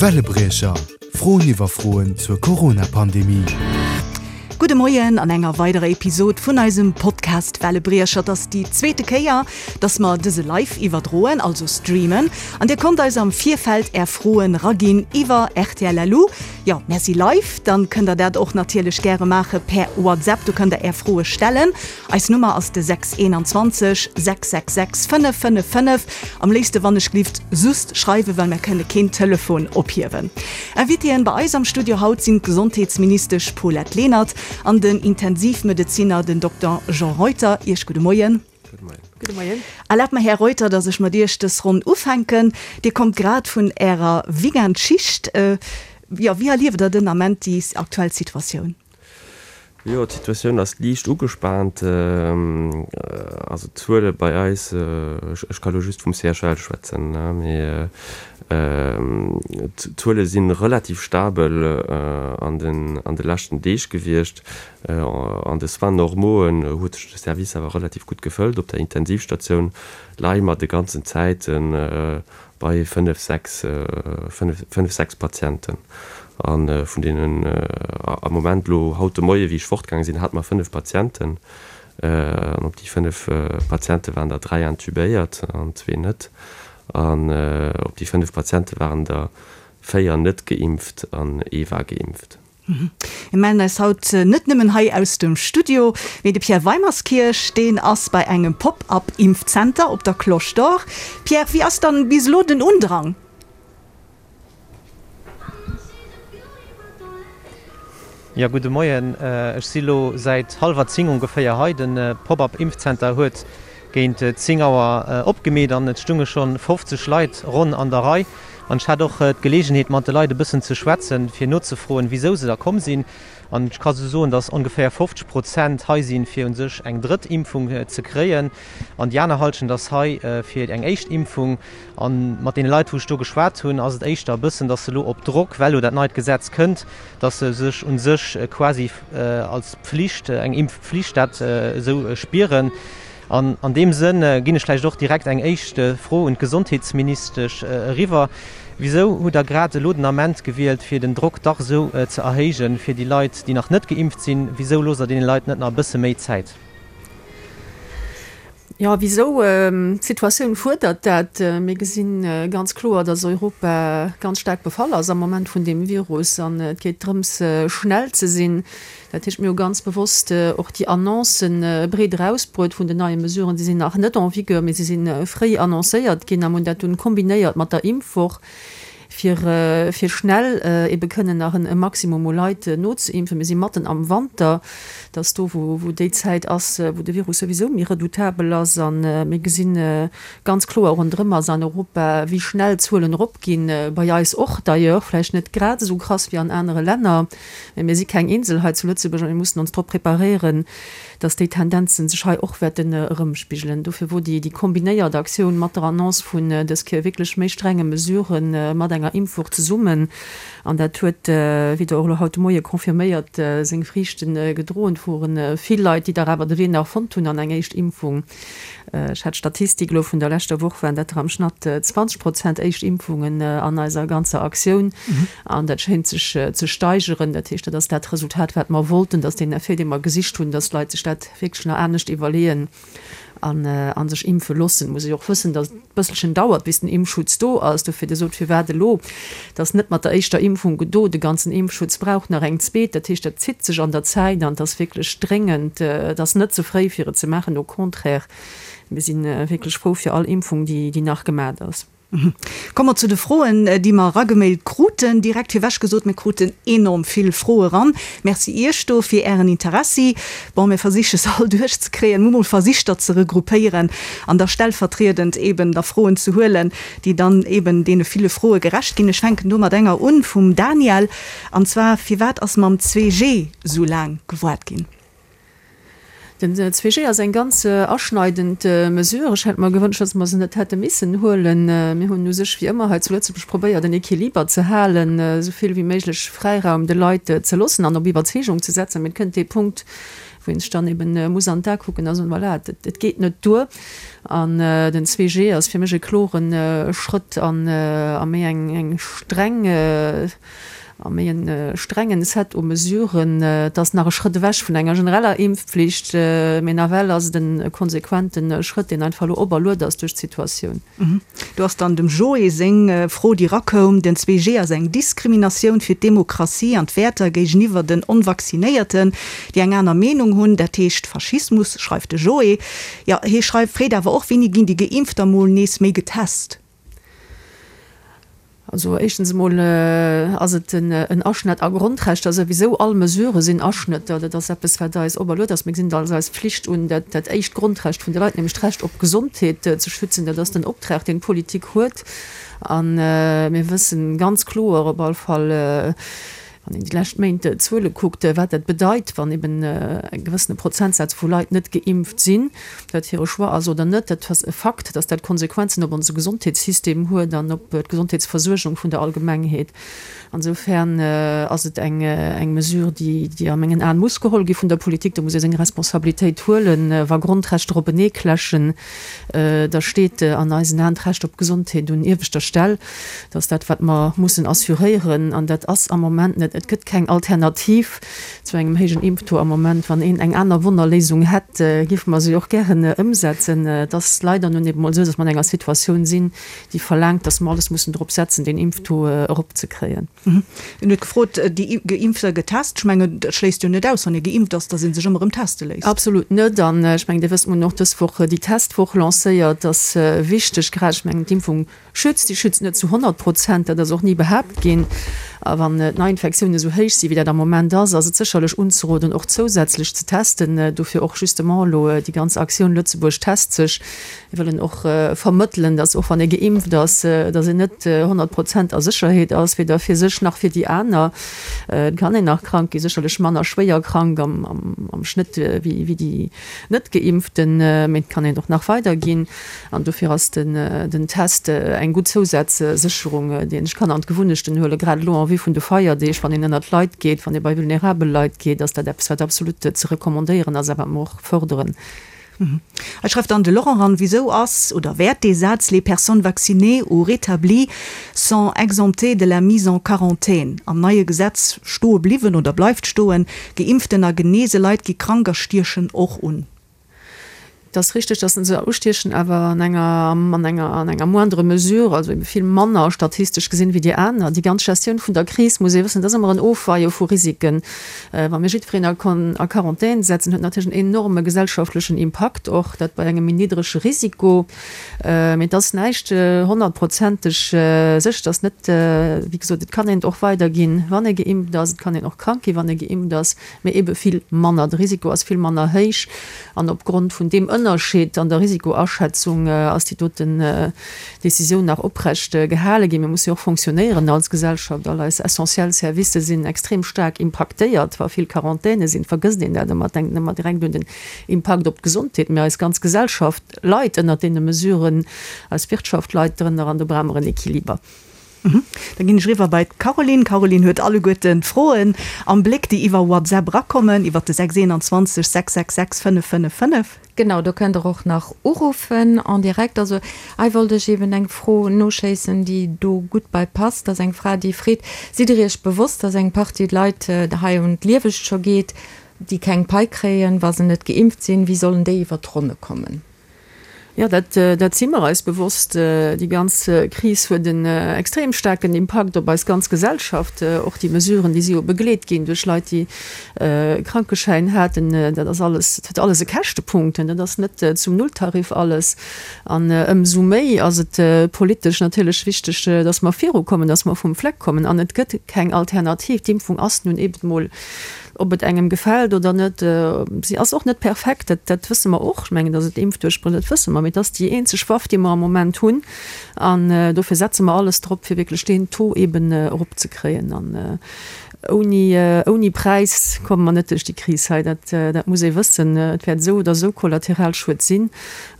Wellebriecher, Froen iwwer Froen zur Corona-Pandemie. Gudde Moien an enger weiderer Episod vun eisem Podcast Wellebriecher. Et ass déi zweete Kéier, dass mer dëse live iwwerdroen, also streamen. An dir konnt eis am Virfeld är Froen raginn iwwer rtl.lu. Jo, mär si live, dann kënnt der dat och natierlech gäre maache per WhatsApp. Do kënnt der är Froe stellen. Eis Nummer ass de 621 666 555. Am léifste wann ech glift sust schreiwen, well mär kënne keen Telefon ophiewen. Invitéen bei eis am Studio haut sinn d'Gesondheetsministesch Paulette Lenert an den Intensivmedezinner den Dokter Jean Reuter. Iech gudde Moien. Gudde Moien. Erlaabt mer, Här Reuter, dass ech mat Iech dës Ronn ufänken. Dir kommt grad vun Ärer Weekendschicht. Jo, wéi erlieft Der den Ament déi aktuell Situatioun? Jo, d'Situatioun ass liicht ugespaant. Also d'Zuele bei eis, ech ka lo just vum CHL schwätzen, mee d'Zuele si relativ stabel an de leschten Deeg gewiescht. An de Soins normauxen huet sech de Service awer relativ gutt gefëllt. Op der Intensivstatioun leie mer de ganzen Zäite bei 5, 6, 5, 6 Patienten. A vun deenen am Moment elo haut de Moie wéi ech fortgaange sinn, hate mer 5 Patienten. An op déi 5 Patiente waren der 3 intubéiert an zwee net. An op déi 5 Patiente waren der 4 net geimpft an ee war geimpft. Mir mellen eis haut net nëmmen hei aus dem Studio, mee de Pierre Weimerskirch, deen ass bei engem Pop-up-Impfzenter op der Cloche d'Or. Pierre, wéi ass dann bis elo den Undrang? Jo, gudde Moien. Ech si lo säit hallwer 10 ongeféier hei. De Pop-up-Impfzenter huet géint 10 Auer opgemeet an et stunge schonn 50 Leit ronn an der Rei. An ech hat och d'Geleegenheet mat de Leit e bëssen ze schwätzen, fir nozefroen, wisou se da komm sinn. An ech ka sou soen, datt ongeféier 50 Prozent hei sinn, fir u sech eng drëtt Impfung ze kréien. An déi aner Hallschent ass hei fir eng éischt Impfung. A mat deene Leit, wou ech do geschwat hunn, ass et éischter e bëssen, datt se elo op Drock, well elo dat neit Gesetz kënnt, datt se sech u sech quasi als Pflicht, eng Impfpflicht dat esou spieren. An an deem Sënn ginn ech vläicht och direkt eng éischt Fro un d'Gesondheetsministesch eriwwer. Wisou hutt Der grad elo den Ament gewielt, fir den Drock dach esou ze erhéijen, fir déi Leit, déi nach net geimpft sinn? Wisou loosst Der deene Leit net nach e bësse méi Zäit? Jo, wisou? D'Situatioun fuerdert dat. Mir gesi ganz kloer, datt Europa ganz staark befall ass am Moment vun deem Virus an et geet drëms, schnell ze sinn. Dat heescht, mir hu ganz bewosst och déi Annoncen breet erausbruet vun den neie Mesuren. Si sinn nach net en vigueur, mee si si fréi annoncéiert ginn a mir hunn dat dunn kombinéiert mat der Impfwoch, fir fir schnell ebe kënnen nach e Maximum u Leit nozeimpfen. Mir si matten am Wanter, dat ass do, wou wou déi Zäit ass, wou de Virus souwisou méi redoutabel ass. A mir gesi ganz kloer ronderëm eis an Europa, wéi schnell d'Zuelen eropginn, bei eis och d'ailleurs, vläicht net grad esou krass wéi an anere Länner. Mä mir si keng Insel hei zu Lëtzebuerg a mir mussen ons drop preparéieren, dass déi Tendenzen sech hei och wäerten erëmspigelen. Dofir wor déi kombinéiert Aktioun mat der Annonce vun dës Kéier wierklech méi strenge Mesurë mat enger Impfwoch zesummen, an dat huet, wéi Der och elo haut de Moie confirméiert, seng Friichte gedroen. Et wore vill Leit, déi dach awer de Wee nach fonnt hunn an eng éischt Impfung. Ech hat d'Statistik elo vun der leschter Woch, waren dat der am Schnatt 20 Prozent éischt Impfungen an eiser ganzer Aktioun. An dat schéint sech ze steigeren. Dat heescht, dat ass dat Resultat, wat mer wollten, dass deen Effet, dee mer gesicht hunn, dass d'Leit sech dat wierklech nach anescht iwwerleeën an sech impfe loossen. Muss ee jo och wëssen, dass et e bësselchen dauert, bis den Impfschutz do ass. Dofir, Dir sot, firwat elo? Et ass net mat der éischter Impfung gedo. De ganzen Impfschutz brauch nach eng zweet. Dat heescht, dat zitt sech an der Zäit an et ass wierklech dréngend. Et ass net ze fréi, fir et ze maachen. Au contraire, mir si wierklech frou fir all Impfung, déi nach gemat ass. Komme mer zu de Froen, déi mer eragemailt kruten. Direkt virwech gesot, mir kruten enorm vill Froe ran. Merci Iech do fir Ären Interessi. Bon, mir versiche se all duerchzekréien. Mir hu mol versicht, der ze regroupéieren an da stellvertriedend eeben der Froen ze huelen, déi dann eben deene ville Froe gerecht ginn. Ech fänken do mat enger un vum Daniel, an zwar, Firwat ass mam 2G esou laang gewaart ginn? Den 2G ass eng ganz aschneidend Mesure. Ech hätt mer gewënscht, dass mer se net hätte missen huelen. Mir hunn u sech wéi ëmmer hei zu Lëtzebuerg probéiert, en Equiliber ze halen, esou vill wéi méiglech Fräiraum de Leit ze loossen an op Iwwerzeegung ze setzen. Mee et kënnt dee Punkt,. Wou een sech dann eben muss an d'A kucken a soen, voilà, et geet net duer. An den 2G ass fir mech e klore Schrëtt an a méi eng streng, a méi e strengen Set u Mesuren. Et ass nach e Schrëtt ewech vun enger genereller Impfpflicht, mee nawell ass et e konsequente Schrëtt, deen einfach elo operluet ass duerch d'Situatioun. Do ass dann dem Joé seng Fro, déi erakoum, Den 2G ass eng Diskriminatioun fir d'Demokratie an d'Wäerter géigeniwwer den Onvaccinéierten, déi eng aner Meenung hunn. Dat heescht Faschismus, schreift de Joé. Jo, hie schreift, freet awer och, Wéini ginn déi Geimpfter mol nees méi getest? Also éischtens emol ass et en Aschnett a Grondrechter souwisou. All Mesurë sinn Aschnëtter. Dat ass eppes, wat eis operluet ass. Mir gesinn et als eis Pflicht un, dat dat éischt Grondrecht vun de Leit, nämlech d'Recht op Gesondheet, ze schützen. Dat ass den Optrag, deen d'Politik huet. A mir wëssen ganz kloer op all Fall, Wann een déi lescht Méint d'Zuele kuckt, wat dat bedeit, wann eben e gewëssene Prozentsaz vu Leit net geimpft sinn, ob dat hire Choix ass oder net, dat ass e Fakt, datt dat Konsequenzen op onse Gesondheetssystem huet an op d'Gesondheetsversuergung vun der Allgemengheet. Insofern ass et eng Mesure, déi a mengen Aen muss geholl gi vun der Politik. Do muss ee seng Responsabilitéit huelen. Wa Grondrechter openeekläschen, da steet an eisen Aen d'Recht op Gesondheet un ieweschter Stell. Dat ass dat, wat mer mussen assuréieren, an dat ass am Moment net. Et gëtt keng Alternativ zu engem héijen Impftaux am Moment. Wann een eng aner Wonnerléisung hätt, géife mer se och gären ëmsetzen. Et ass leider nun eben emol esou, datt mer an enger Situatioun sinn, déi verlaangt, datt mer alles mussen drop setzen, deen Impftaux eropzekréien. En huet gefrot, déi Geimpfter getest. Ech mengen, dat schléisst jo net aus, wann ee geimpft ass, datt ee sech ëmmer erëm teste léisst. Absolut net. An ech mengen, Dir wësst, mer hunn och dës Woch déi Testwoch lancéiert. Dat ass wichteg, grad, ech mengen, d'Impfung Schützt, déi schützt net zu 100 Prozent, dat ass och ni behaapt ginn. A wann d'Neiinfektiounen esou héich sinn, wéi dat am Moment ass, ass et sécherlech unzeroden, och zousätzlech ze testen. Dofir och justement elo déi ganz Aktioun Lëtzebuerg test sech. Mir wëllen och vermëttelen, dass och wann ee geimpft ass, dass een net 100 Prozent a Sécherheet ass, weder fir sech nach fir déi aner. Et kann een nach krank ginn, sécherlech manner schwéier krank am Schnëtt wéi déi Net-Geimpften, mee et kann een och nach weiderginn. An dofir ass den Test eng gutt Zousazsécherung, déi een sech kann an d'Gewunnechten huelen, grad elo en vue vun de Feierdeeg, wann een ënnert Leit geet, wann ee bei vulnerabel Leit geet, ass dat eppes, wat absolut ze recommandéieren ass a wat mer och fërderen. Hei schreift dann de Laurent eran, Wisou ass oder wäert dee Saz Les personnes vaccinées ou rétablies sont exemptées de la mise en quarantaine am neie Gesetz stoe bliwwen oder bleift stoen? Geimpften a genese Leit gi krank a stiechen och un. Et ass richteg, dass se ustiechen, awer an enger, an enger, an enger moindre mesure, also ebe vill manner statistesch gesinn wéi déi aner. Déi ganz Gestioun vun der Kris, muss ee wëssen, dat ass ëmmer en Ofweie vu Risiken. Wa mir jiddwereen a a Quarantän setzen, huet natierlech en enorme gesellschaftlechen Impakt och, dat bei engem méi niddrege Risiko. Mee et ass näischt honnertprozenteg sécher. Et ass net, wéi gesot, et kann een et och weiderginn, wann ee geimpft ass. Et kann een och krank ginn, wann ee geimpft ass. Mee ebe vill manner. De Risiko ass vill manner héich. An opgrond vun deem Ënnerscheed an der Risikoaschätzung ass déi doten Decisioun nach oprecht gehale ginn. Mir musse jo och fonctionnéieren als Gesellschaft. All eis essentiell Servicë sinn extrem staark impaktéiert. Wa vill Quarantäne sinn, vergësst een dat ëmmer, denkt ëmmer direkt un den Impakt op d'Gesondheet. Mee eis ganz Gesellschaft leit ënnert deene Mesuren, eis Wirtschaft leit drënner an do brauche mer en Equiliber. Da ginn ech eriwwer bei d'Caroline. D'Caroline huet alleguerten d'Froen am Bléck, déi iwwer WhatsApp erakommen, iwwer de 621 666 555. Genau, do kënnt Der och nach uruffen en direct. Also hei wollt ech eeben eng Fro noschéissen, déi do gutt bei passt. Dat ass eng Fra, déi freet, Sidd Der Iech bewosst, dass eng Partie Leit hei un d'Liewegt scho geet, déi keng Pai kréien, wa se net geimpft sinn? Wéi sollen déi iwwer d'Ronne kommen? Jo, dat, dat si mer eis bewosst. Déi ganz Kris huet en extrem staarken Impakt op eis ganz Gesellschaft. Och déi Mesuren, déi si jo begleet ginn duerch Leit, déi e Krankeschäin haten, dat ass alles, dat huet alles e Käschtepunkt. Dat ass net zum Nulltarif alles. An ëmsou méi ass et politesch natierlech wichteg, dass mer virukommen, dass mer vum Fleck kommen. An et gëtt keng Alternativ. D'Impfung ass nun eben emol Ob et engem gefält oder net, si ass och net perfekt, dat, dat wësse mer och. Ech mengen, datt et Impfduerchbréch, dat wësse mer, mee et ass déi eenzeg Waff, déi mer am Moment hunn. An dofir setze mer alles drop, fir wierklech deen Taux eeben eropzekréien. An ouni, ouni Präis komme mer net duerch déi Kris hei, dat, dat muss ee wëssen. Et wäert esou oder esou Kollateralschued sinn.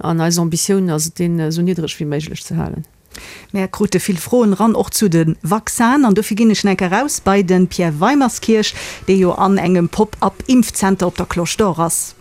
An eis Ambitioun ass et, deen esou niddreg wéi méiglech ze halen. Mär krute vill Froen eran, och zu de Vaccinen, an dofir ginn ech enk eraus bei de Pierre Weimerskirch, dee jo an engem Pop-up-Impfzenter op der Cloche d'Or ass.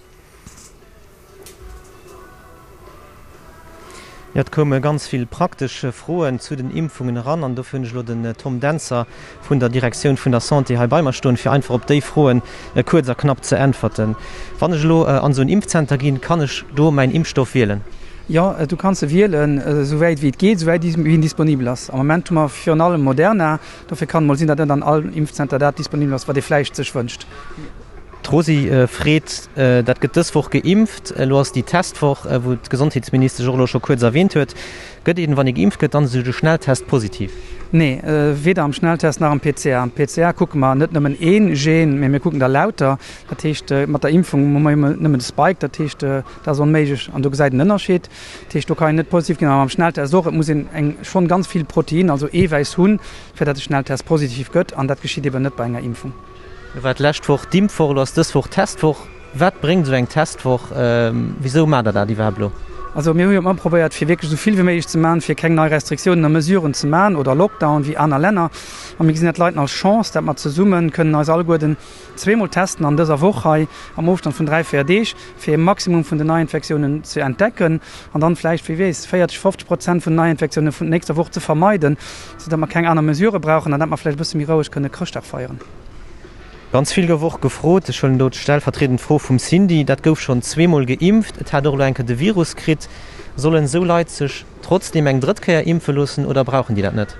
Jo, et koume ganz vill praktesch Froen zu den Impfungen eran an dofir hunn ech elo den Tom Dentzer vun der Direktioun vun der Santé hei bei mer stoen, fir einfach op déi Froen kuerz a knapp ze äntwerten. Wann ech elo an esou en Impfzenter ginn, kann ech do mäin Impfstoff wielen? Jo, du kanns e wielen, esou wäit wéi et geet, esou wäit wéi en disponibel ass. Am Moment hu mer virun allem Moderna, dofir kann et mol sinn, datt net an all Impfzenter dat disponibel ass, wat ee vläicht sech wënscht. D'Rosy freet, Dat gëtt dës Woch geimpft. Elo ass déi Testwoch, wou d'Gesondheetsministesch och elo scho kuerz erwähnt huet. Gëtt een, wann ee geimpft gëtt, dann esou de Schnelltest positiv? Nee, weder am Schnelltest nach am PCR. Am PCR kucke mer net nëmmen ee Gen, mee mir kucken der lauter. Dat heescht, mat der Impfung hu mer nëmmen de Spike. Dat heescht, dat ass onméiglech an do gesäit een Ënnerscheed. Dat heescht, do kann een net positiv ginn. A mam Schnelltest och, et muss een eng schonn ganz vill Protein, also Eewäiss hunn, fir dat de Schnelltest positiv gëtt. An dat geschitt eben net bei enger Impfung. Lo war d'lescht Woch d'Impfwoch, elo ass dës Woch d'Testwoch. Wat bréngt esou eng Testwoch? Wisou maacht der dat iwwerhaapt elo? Also mir hu jo ëmmer probéiert, fir wierklech esou vill wéi méiglech ze maachen, fir keng nei Restriktiounen a Mesuren ze maachen oder Lockdown wéi aner Länner. A mir gesinn dat Leiten als Chance, dat mer zesumme kënnen eis alleguerten zweemol testen an dëser Woch hei am Ofstand vun 3, 4 Deeg, fir e Maximum vun den Neiinfektiounen ze entdecken an dann vläicht, wie weess, 40, 50 Prozent vun den Neiinfektiounen vun nächster Woch ze vermeiden. Sou datt mer keng aner Mesurë brauchen an datt mer vläicht e bësse méi roueg kënne Chrëschtdag feieren. Ganz vill gouf och gefrot, ech huelen do d'stellvertriedend Fro vum Cindy, dat gouf schonn zweemol geimpft, et hat och elo eng Kéier de Virus kritt. Sollen esou Leit sech trotzdeem eng drëtt Kéier impfe loossen oder brauchen déi dat net?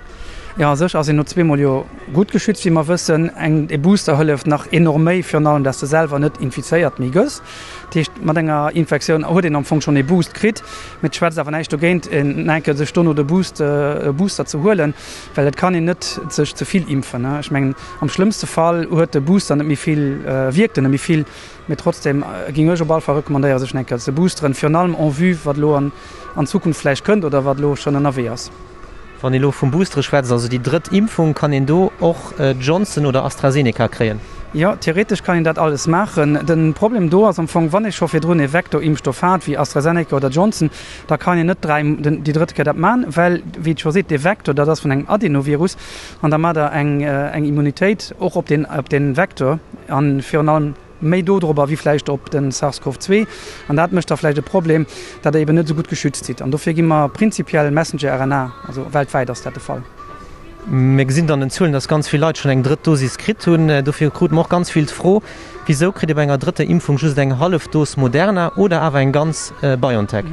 Jo, a sech ass een no zweemol jo gutt geschützt, wéi mer wëssen. Eng, e Booster hëlleft nach enorm méi, virun allem, datt s de selwer net infizéiert méi gëss. Dat heescht, mat enger Infektioun huet een am Fong schonn ee Boost kritt, mee et schwätzt awer näischt dogéint, en enke sech dono de Boost, e Booster ze huelen, well et kann een net sech ze vill impfen. Ech mengen, am schlëmmste Fall huet de Booster net méi vill, wierkt en net méi vill, mee trotzdem géing ech op alle Fall recommandéieren, sech en enke ze boosteren, virun allem en vue wat elo an Zukunft vläicht kënnt oder wat elo schonn ënnerwee ass. Wann ee lo vum Boostere schwätzt, also déi drëtt Impfung, kann een do och Johnson oder AstraZeneca kréien? Jo, theoretesch kann een dat alles maachen. De Problem do ass am Fong, wann ee scho virdrun ee Vektorimpfstoff hat, wéi AstraZeneca oder Johnson, da kann een net dräi, déi drëtt Kéier dat maachen, well, wéi et scho seet, dee Vektor, dat ass vun engem Adenovirus an da maacht Der eng Immunitéit och op deen, op dee Vektor a virun allem, méi dodrobber wéi vläicht op de SARS-CoV 2 an dat mécht da vläicht e Problem, datt Der eben net esou gutt geschützt sidd. An dofir gi mer prinzipiell Messenger-RNA, also weltwäit ass dat de Fall. Mir gesinn et an den Zuelen, datt ganz vill Leit schonn eng drëtt Dosis kritt hunn. Dofir krute mer och ganz vill d'Fro, Wisou kritt ee bei enger drëtter Impfung just eng hallef Dos Moderna oder awer eng ganz BioNTech?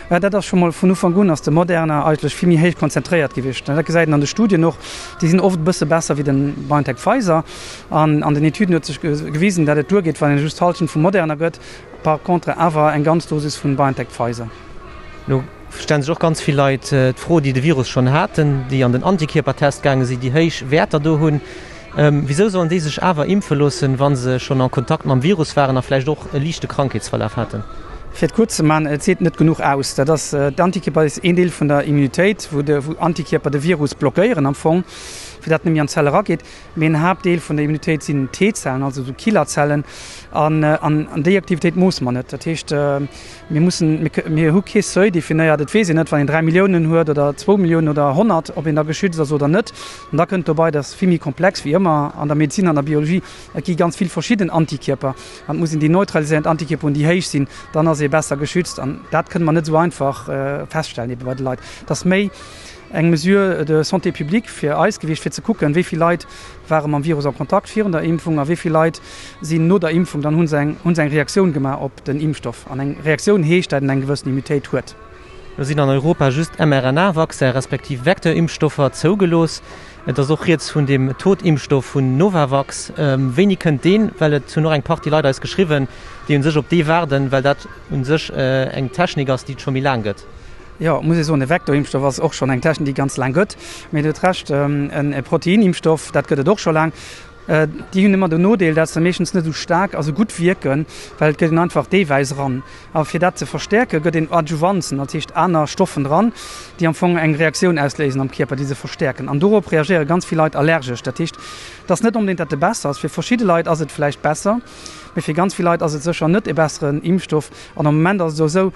Dat ass scho mol vun Ufank un ass de Moderna eigentlech vill méi héich konzentréiert gewiescht. Dat gesäit een an de Studien och, déi sinn oft e bësse besser wéi de BioNTech-Pfizer. An an den Etüden huet sech gewisen, dat et duergeet, wann een just d'Hallschent vu Moderna gëtt, par contre awer eng ganz Dosis vun BioNTech-Pfizer. Lo stellen sech och ganz vill Leit d'Fro, déi de Virus schonn haten, déi an den Antikierpertest gaange sinn, déi héich Wäerter do hunn, wisou sollen déi sech awer impfe loossen, wa se schonn en Kontakt mam Virus waren a vläicht och e liichte Krankheetsverlaf haten? Fir et kuerz ze maachen, et seet net genuch aus. Dat ass, d'Antikierper ass een Deel vun der Immunitéit, wou de, wou Antikierper de Virus blockéieren am Fong, fir dat net méi an d'Zell erageet. Mee en Haaptdeel vun der Immunitéit sinn T-Zellen, also esou Killerzellen, an an déi Aktivitéit moosse mer net. Dat heescht, mir mussen, mir hu kee Seuil definéiert. Et weess een net, wann een 3 Milliounen huet oder zwou Milliounen oder 100, ob een da geschützt ass oder net. An da kënnt dobei, dat ass vill méi komplex wéi ëmmer an der Medezin, an der Biologie, et gi ganz vill verschidden Antikierper an et muss een déi neutraliséierend Antikierper hunn, déi héich sinn, dann ass ee besser geschützt. An dat kënne mer net esou einfach feststellen ebe bei de Leit. Et ass méi eng Mesure de santé publique fir eis gewiescht, fir ze kucken, wéi vill Leit ware mam Virus en Kontakt virun der Impfung a wéi vill Leit sinn no der Impfung, dann hu se eng, hu se eng Reaktioun gemaach op den Impfstoff. An eng Reaktioun heescht, dat een eng gewëssen Immunitéit huet. Lo sinn an Europa just mRNA-Vaccin respektiv Vecteur-Impfstoffer zougelooss. Et ass och rieds vun dem Totimpfstoff vun Novavax. Wéini kënnt deen? Well et hunn och eng Partie Leit eis geschriwwen, déi u sech op dee waarden, well dat u sech eng Technik ass, déi et scho méi laang gëtt. Jo, muss ee soen, e Vektorimpfstoff ass och schonn eng Technik, déi ganz laang gëtt. Mee Dir hutt Recht, e Proteinimpfstoff, dat gëtt et och scho laang. Déi hunn ëmmer den Nodeel, dat se meeschtens net esou staark a sou gutt wierken, well et gëtt een einfach d'Eewäiss eran. A fir dat ze verstäerken, gëtt een Adjuvanzen, dat heescht aner Stoffen dran, déi am Fong eng Reaktioun ausléisen am Kierper, déi se verstäerken. An dorop reagéiere ganz vill Leit allergesch. Dat heescht, et ass net onbedéngt, dat e besser ass. Fir verschidde Leit ass et vläicht besser. Mee fir ganz vill Leit ass et sécher net e besseren Impfstoff. An am Moment ass et och esou,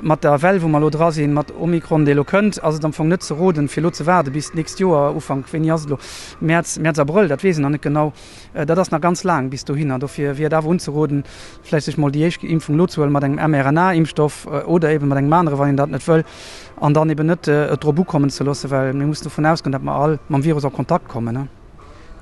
mat der Well, wou mer elo dra sinn, mat Omikron, dee elo kënnt, ass et am Fong net ze roden, fir elo ze waarde bis d'nächst Joer, Ufank, wéini ass et elo, Mäerz, Mäerz, Abrëll, dat weess een nach net genau. Dat ass nach ganz laang bis dohinner. Dofir wier et awer unzeroden, vläicht sech mol déi éischt Impfung elo ze huelen, mat engem mRNA-Impfstoff oder eeben mat engem anere, wann een dat net wëll, an dann eeben net et drop ukommen ze loossen, well mir mussen dovun ausgoen, datt mer all mam Virus a Kontakt kommen.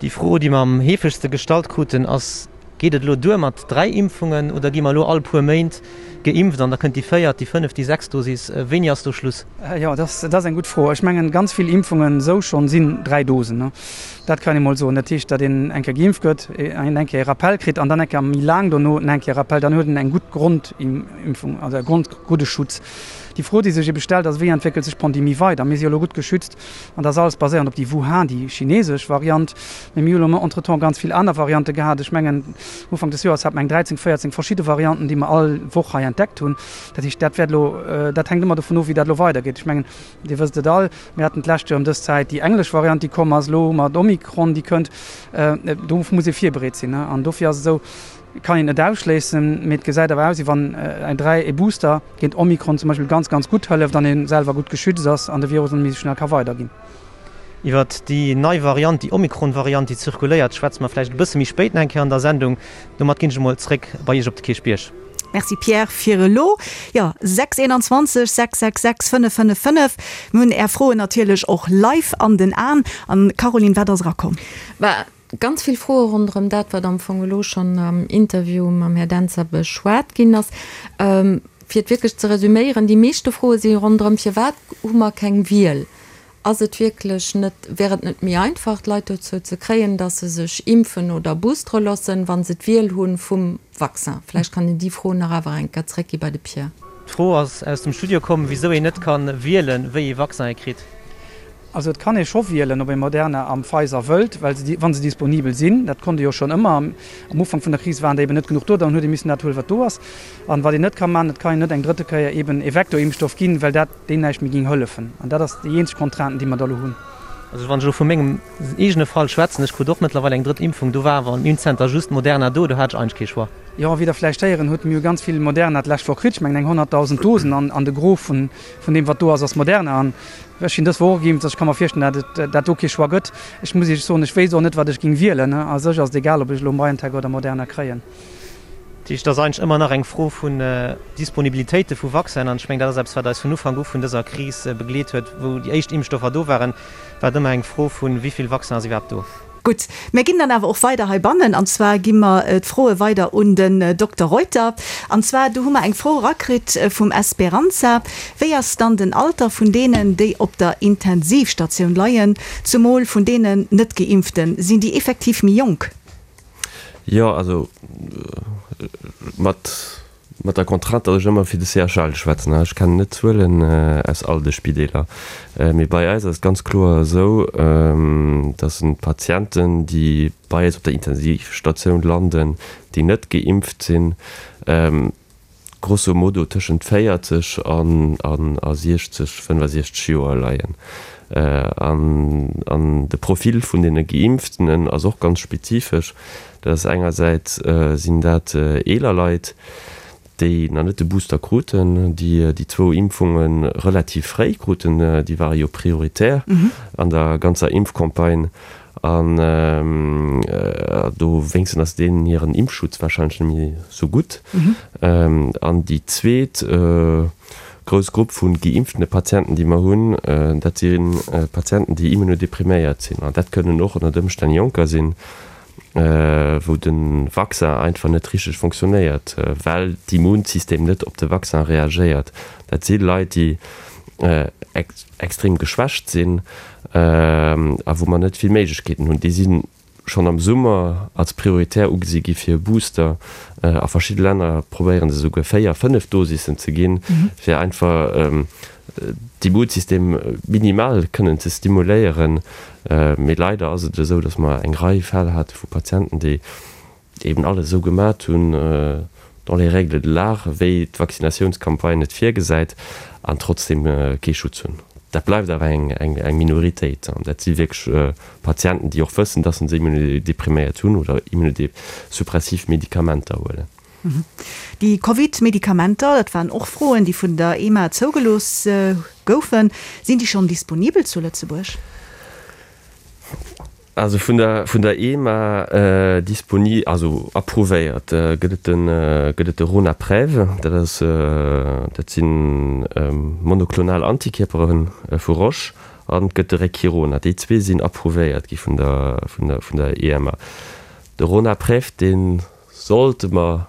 Déi Fro, déi mer am heefegste gestallt kruten, ass, Geet et elo duer mat 3 Impfungen oder gi mer elo all puer Méint geimpft an da kënnt déi véiert, déi fënneft, déi sechst Dosis? Wéini ass do Schluss? Jo, dat ass eng gutt Fro. Ech mengen, ganz vill Impfungen esou schonn sinn 3 Dosen. Dat kann ee mol soen. Dat heescht, datt een eng Kéier geimpft gëtt, een eng Kéier e Rappel kritt an dann eng Kéier méi laang dono eng Kéier e Rappel. Dann huet een eng gutt Grondimpfung, also e Grond, gudde Schutz. Déi Fro, déi sech ebe stellt, ass, Wéi entwéckelt sech d'Pandemie weider? Mir si jo elo gutt geschützt. An dat ass alles baséiernd op déi Wuhan, déi chinesesch Variant. Mee mir hu lo entretemps ganz vill aner Variante gehat. Ech mengen, Ufank des Joers hate mer eng 13, 14 verschidde Varianten, déi mer all Woch hei entdeckt hunn. Dat heescht, dat wäert elo, dat hänkt ëmmer dovun of, wéi dat elo weidergeet. Ech mengen, Dir wësst et all, mir haten d'lescht Joer ëm dës Zäit déi englesch Variant, déi komm ass. Elo hu mer d'Omikron, déi kënnt. Do muss ee virbereet sinn. An dofir ass et esou, kann een net ausschléissen, mee et gesäit awer aus, wéi wann eng 3, e Booster géint Omikron zum Beispill ganz, ganz gutt hëlleft an ee selwer gutt geschützt ass an de Virus net méi esou schnell ka weiderginn. Iwwert déi nei Variant, déi Omikron-Variant, déi zirkuléiert, schwätze mer vläicht e bësse méi spéit nach eng Kéier an der Sendung. Domat ginn ech emol zréck bei Iech op de Kierchbierg. Merci Pierre fir elo. Jo, 6 21 666 555. Mir hunn Är Froen natierlech och live an den Aen. An Caroline, wat ass erakomm? Bah, Ganz vill Froe ronderëm dat, wat am Fong elo schonn am Interview mam Här Dentzer beschwat ginn ass. Fir et wierklech ze resüméieren, déi meeschte Froe si ronderëm, Firwat hu mer keng Wiel? Ass et wierklech net, wär et net méi einfach, d'Leit dozou ze kréien, datt se sech impfen oder boostere loossen, wa se d'Wiel hu vum Vaccin? Vläicht kann een déi Fro nach awer eng Kéier zréckgi bei de Pierre. D'Fro ass aus dem Studio komm, wisou een net ka wielen, wéi ee Vaccin ee kritt. Also et kann ee scho wielen, ob ee Moderna a Pfizer wëllt, well se, wa se disponibel sinn, dat konnt ee jo schonn ëmmer, am Ufank vun der Kris waren der eben net genuch do, dann huet ee missen dat huelen, wat do ass. An wat een net ka maachen, et kann een net eng drëtte Kéier eben ee Vektorimpfstoff ginn, well dat deem näischt méi géing hëllefen. An dat ass déi eenzeg Contrainte, déi mer da elo hunn. Also wann ech elo vu mengem eegene Fall schwätzen, ech krut och mëttlerweil eng drëtt Impfung, do war awer am Impfzenter just Moderna do, do hat ech eigentlech kee Choix. Jo, wéi Der vläicht héieren hutt, mir hu ganz vill Moderna d'lescht Woch kritt, ech mengen eng 100.000 Dosen, an de Gros vun deem, wat do ass, ass Moderna. An Ech sinn dës Woch och geimpft, also ech ka mer virstellen, dat et dat do kee Choix gëtt. Ech muss Iech soen, ech wéisst och net, wat ech géing wielen. A sech ass et egal, ob ech elo BioNTech oder Moderna kréien. Dat heescht, et ass eigentlech ëmmer nach eng Fro vun Disponibilitéite vu Vaccinen. An ech mengen, dat ass eppes, wat eis vun Ufank u vun dëser Kris begleet huet. Wou déi éischt Impfstoffer do waren, war et ëmmer eng Fro vun, Wéi vill Vaccin ass iwwerhaapt do? Gutt, mir ginn dann awer och weider heibannen, an zwar gi mer d'Froe weider un den Dokter Reuter. An zwar, do hu mer eng Fro erakritt vum Esperanza, Wéi ass dann den Alter vun deenen, déi op der Intensivstatioun leien, zumol vun deenen Net-Geimpften? Sinn déi effektiv méi jonk? Jo, also mat Mat der Contrainte, datt ech ëmmer fir de CHL schwätzen, ech kennen net d'Zuelen aus all de Spideeler, mee bei eis ass et ganz kloer esou, datt d'Patienten, déi bei eis op der Intensivstatioun landen, déi net geimpft sinn, grosso modo tëschent 40 an a 60, 65 Joer leien. An de Profil vun deene Geimpftenen ass och ganz spezifesch. Dat ass engersäits sinn dat eeler Leit, déi nach net de Booster kruten, déi déi zwou Impfunge relativ fréi kruten, déi ware jo prioritär an der ganzer Impfcampagne an do wéinsten ass deenen hiren Impfschutz warscheinlech net méi sou gutt. An déi zweet grouss Grupp vu geimpftene Patienten, déi mer hunn, dat si Patienten, déi immunodepriméiert sinn an dat kënnen och ënnert Ëmstänn Jonker sinn, wou de Vaccin einfach net richteg fonctionnéiert, well d'Immunsystem net op de Vaccin reagéiert. Dat si Leit, déi extrem geschwächt sinn a wou mer net vill Méiglechkeeten hunn. Déi si schonn am Summer als prioritär ugesi gi fir e Booster. A verschidde Länner probéiere se esouguer 4, 5 Dosissen ze ginn, fir einfach d'Immunsystem minimal kënnen ze stimuléieren. Mee leider ass et esou, datt mer eng Rei Fäll hate vu Patienten, déi eben alles esou gemat hunn, dans les règles de l'art, wéi d'Vaccinatiounscampagne et virgesäit, an trotzdeem kee Schutz hunn. Dat bleift awer eng Minoritéit. An dat si wierklech Patienten, déi och wëssen, dass se immunodepriméiert hunn oder immunodesuppressiv Medikamenter huelen. Déi Covid-Medikamenter, dat waren och Froen, déi vun der EMA zougelooss goufen, sinn déi schonn disponibel zu Lëtzebuerg? Also vun der vun der EMA disponi also approuvéiert gëtt et de gëtt et de Ronapreve, dat ass dat si monoklonal Antikierpere vu Roche, an et gëtt de Regkirona. Déi zwee sinn approuvéiert gi vun der vun der vun der EMA. De Ronapreve, dee Sollte mer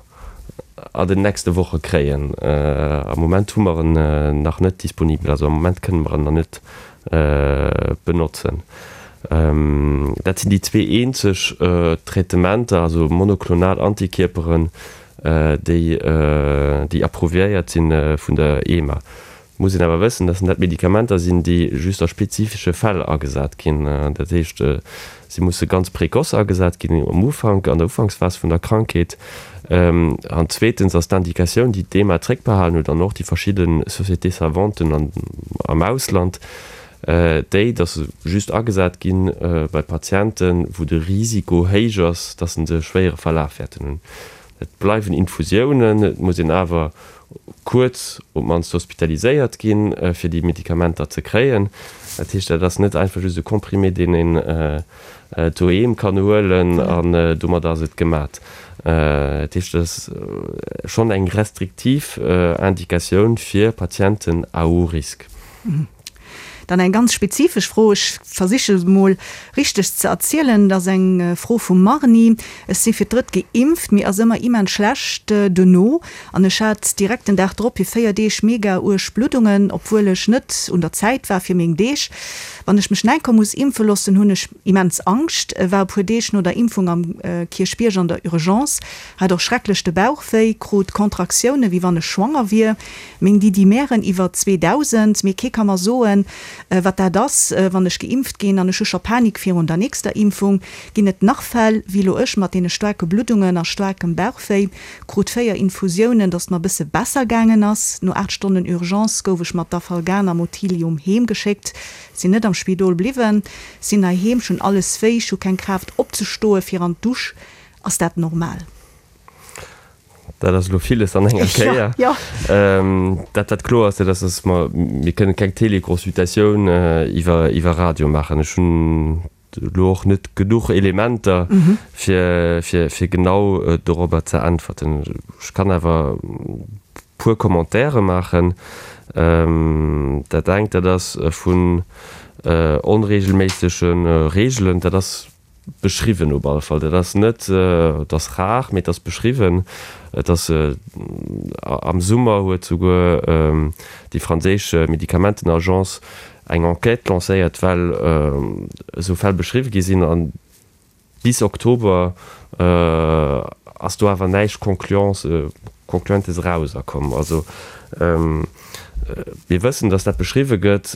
an den nächste Woche kréien. Am Moment hu mer en nach net disponibel, also am Moment kënne mer en nach net benotzen. Dat sinn déi zwee eenzeg Traitementer, also monoklonal Antikierperen, déi déi approuviéiert si vun der EMA. Muss een awer wëssen, dass dat Medikamenter sinn, déi just a spezifesche Fäll agesat ginn. Dat heescht, si musse ganz précoce agesat ginn, um Ufank, an der Ufanksphas vun der Krankheet. An zweetens ass d'Indikatioun, déi d'EMA zréckbehalen huet an och déi verschidde Sociétés savanten am Ausland, déi, dass se just agesat gi bei Patienten, wou de Risiko héich ass, dass se e schwéiere Verlaf wäerten hunn. Et bleiwen Infusiounen, et muss een awer kuerz op d'mannst hospitaliséiert ginn, fir déi Medikamenter ze kréien. Dat heescht, dat ass net einfach just e Comprimé, deen een doheem kann huelen an domat ass et gemat. Dat heescht, et ass schonn eng restriktiv Indikatioun fir Patienten à haut risque. Dann eng ganz spezifesch Fro, ech versiche se mol richteg ze erzielen, dat ass eng Fro vum Marni, Ech si fir d'drëtt geimpft, mir ass ëmmer immens schlecht duerno an ech hat direkt den Dag drop fir 4 Deeg mega uerg Bluddungen, obwuel ech net un der Zäit war fir meng Deeg. Wann ech mech enker muss impfe loossen, hunn ech immens Angscht. War e puer Deeg no der Impfung am Kierchbierg an der Urgence, hat och schrecklech de Bauch wéi, krut Contractioune wéi wann ech schwanger wier. Meng Didimären iwwer 2000, mee kee ka mer soen, wat dat ass, wann ech geimpft ginn, an ech hu scho Panik virun der nächster Impfung. Ginn et nach Fäll, wéi lo ech, mat deene staarke Bluddungen a staarkem Bauchwéi? Krut 4 Infusiounen, dass et mer bësse besser gaangen ass. No 8 Stonnen Urgence gouf ech mat Dafalgan a Motilium heem geschéckt. Sinn net am Spidol bliwwen, sinn heiheem, ech hunn alles wéi, ech hu keng Kraaft opzestoe fir an d'Dusch. Ass dat normal? Dat ass elo villes an enger Kéier. Ja, ja. Dat, wat kloer ass, dat ass, dass mer, mir kënnen keng Teleconsultatioun iwwer, iwwer Radio maachen. Ech hunn elo och net genuch Elementer, fir, fir, fir genau dorobber ze äntwerten. Ech kann awer e puer Commentaire maachen. Dat engt, dat ass vun onregelméissege Reegelen. Dat ass Beschriwwen op alle Fall. Dat ass net, et ass rar, mee et ass beschriwwen. Et ass, am Summer huet souguer déi franséisch Medikamentenagence eng Enquête lancéiert, well esou Fäll beschriwwe gi sinn. An bis Oktober ass do awer näischt Concluantes erauserkomm. Also mir wëssen, datt dat beschriwwe gëtt,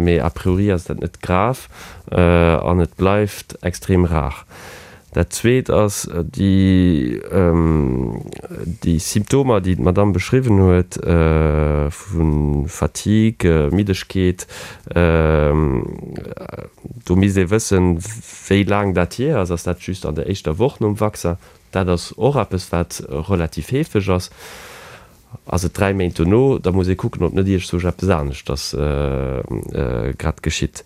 mee a priori ass dat net grav an et bleift extrem rar. Dat Zweet ass déi Symptomer, déi d'Madamm beschriwwen huet, vu Fatigue, Middegkeet. Do misst ee wëssen, wéi laang dat hier ass. Ass dat just an der éischter Woch nom Vaccin? Dat ass och eppes, wat relativ heefeg ass. Ass et 3 Méint dono, da muss ee kucken, ob net iergzwousch eppes aneschters grad geschitt.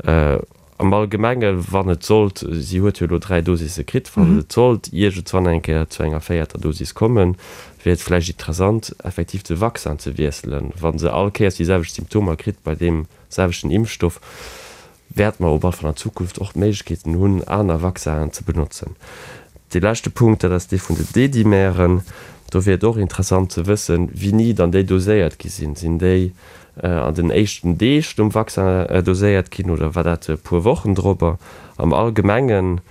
Am Allgemenge wann et sollt, si huet jo elo 3 Dosisse kritt, wann et sollt iergendzwann eng Kéier zu enger véierter Dosis kommen, wier et vläicht interessant, effektiv de Vaccin ze wiesselen. Wa se all Kéiers déi selwecht Symptomer kritt bei deem selwechten Impfstoff, wäerte mer op alle Fall an Zukunft och d'Méiglechkeeten hunn, aner Vaccinen ze benotzen. Dee leschte Punkt, dat ass dee vun de Dedimären. Do wier et och interessant ze wëssen, wéini dann déi doséiert gi sinn. Sinn déi an den éischten Deeg nom Vaccin doséiert ginn oder war dat e puer Wochen drop? Am Allgemengen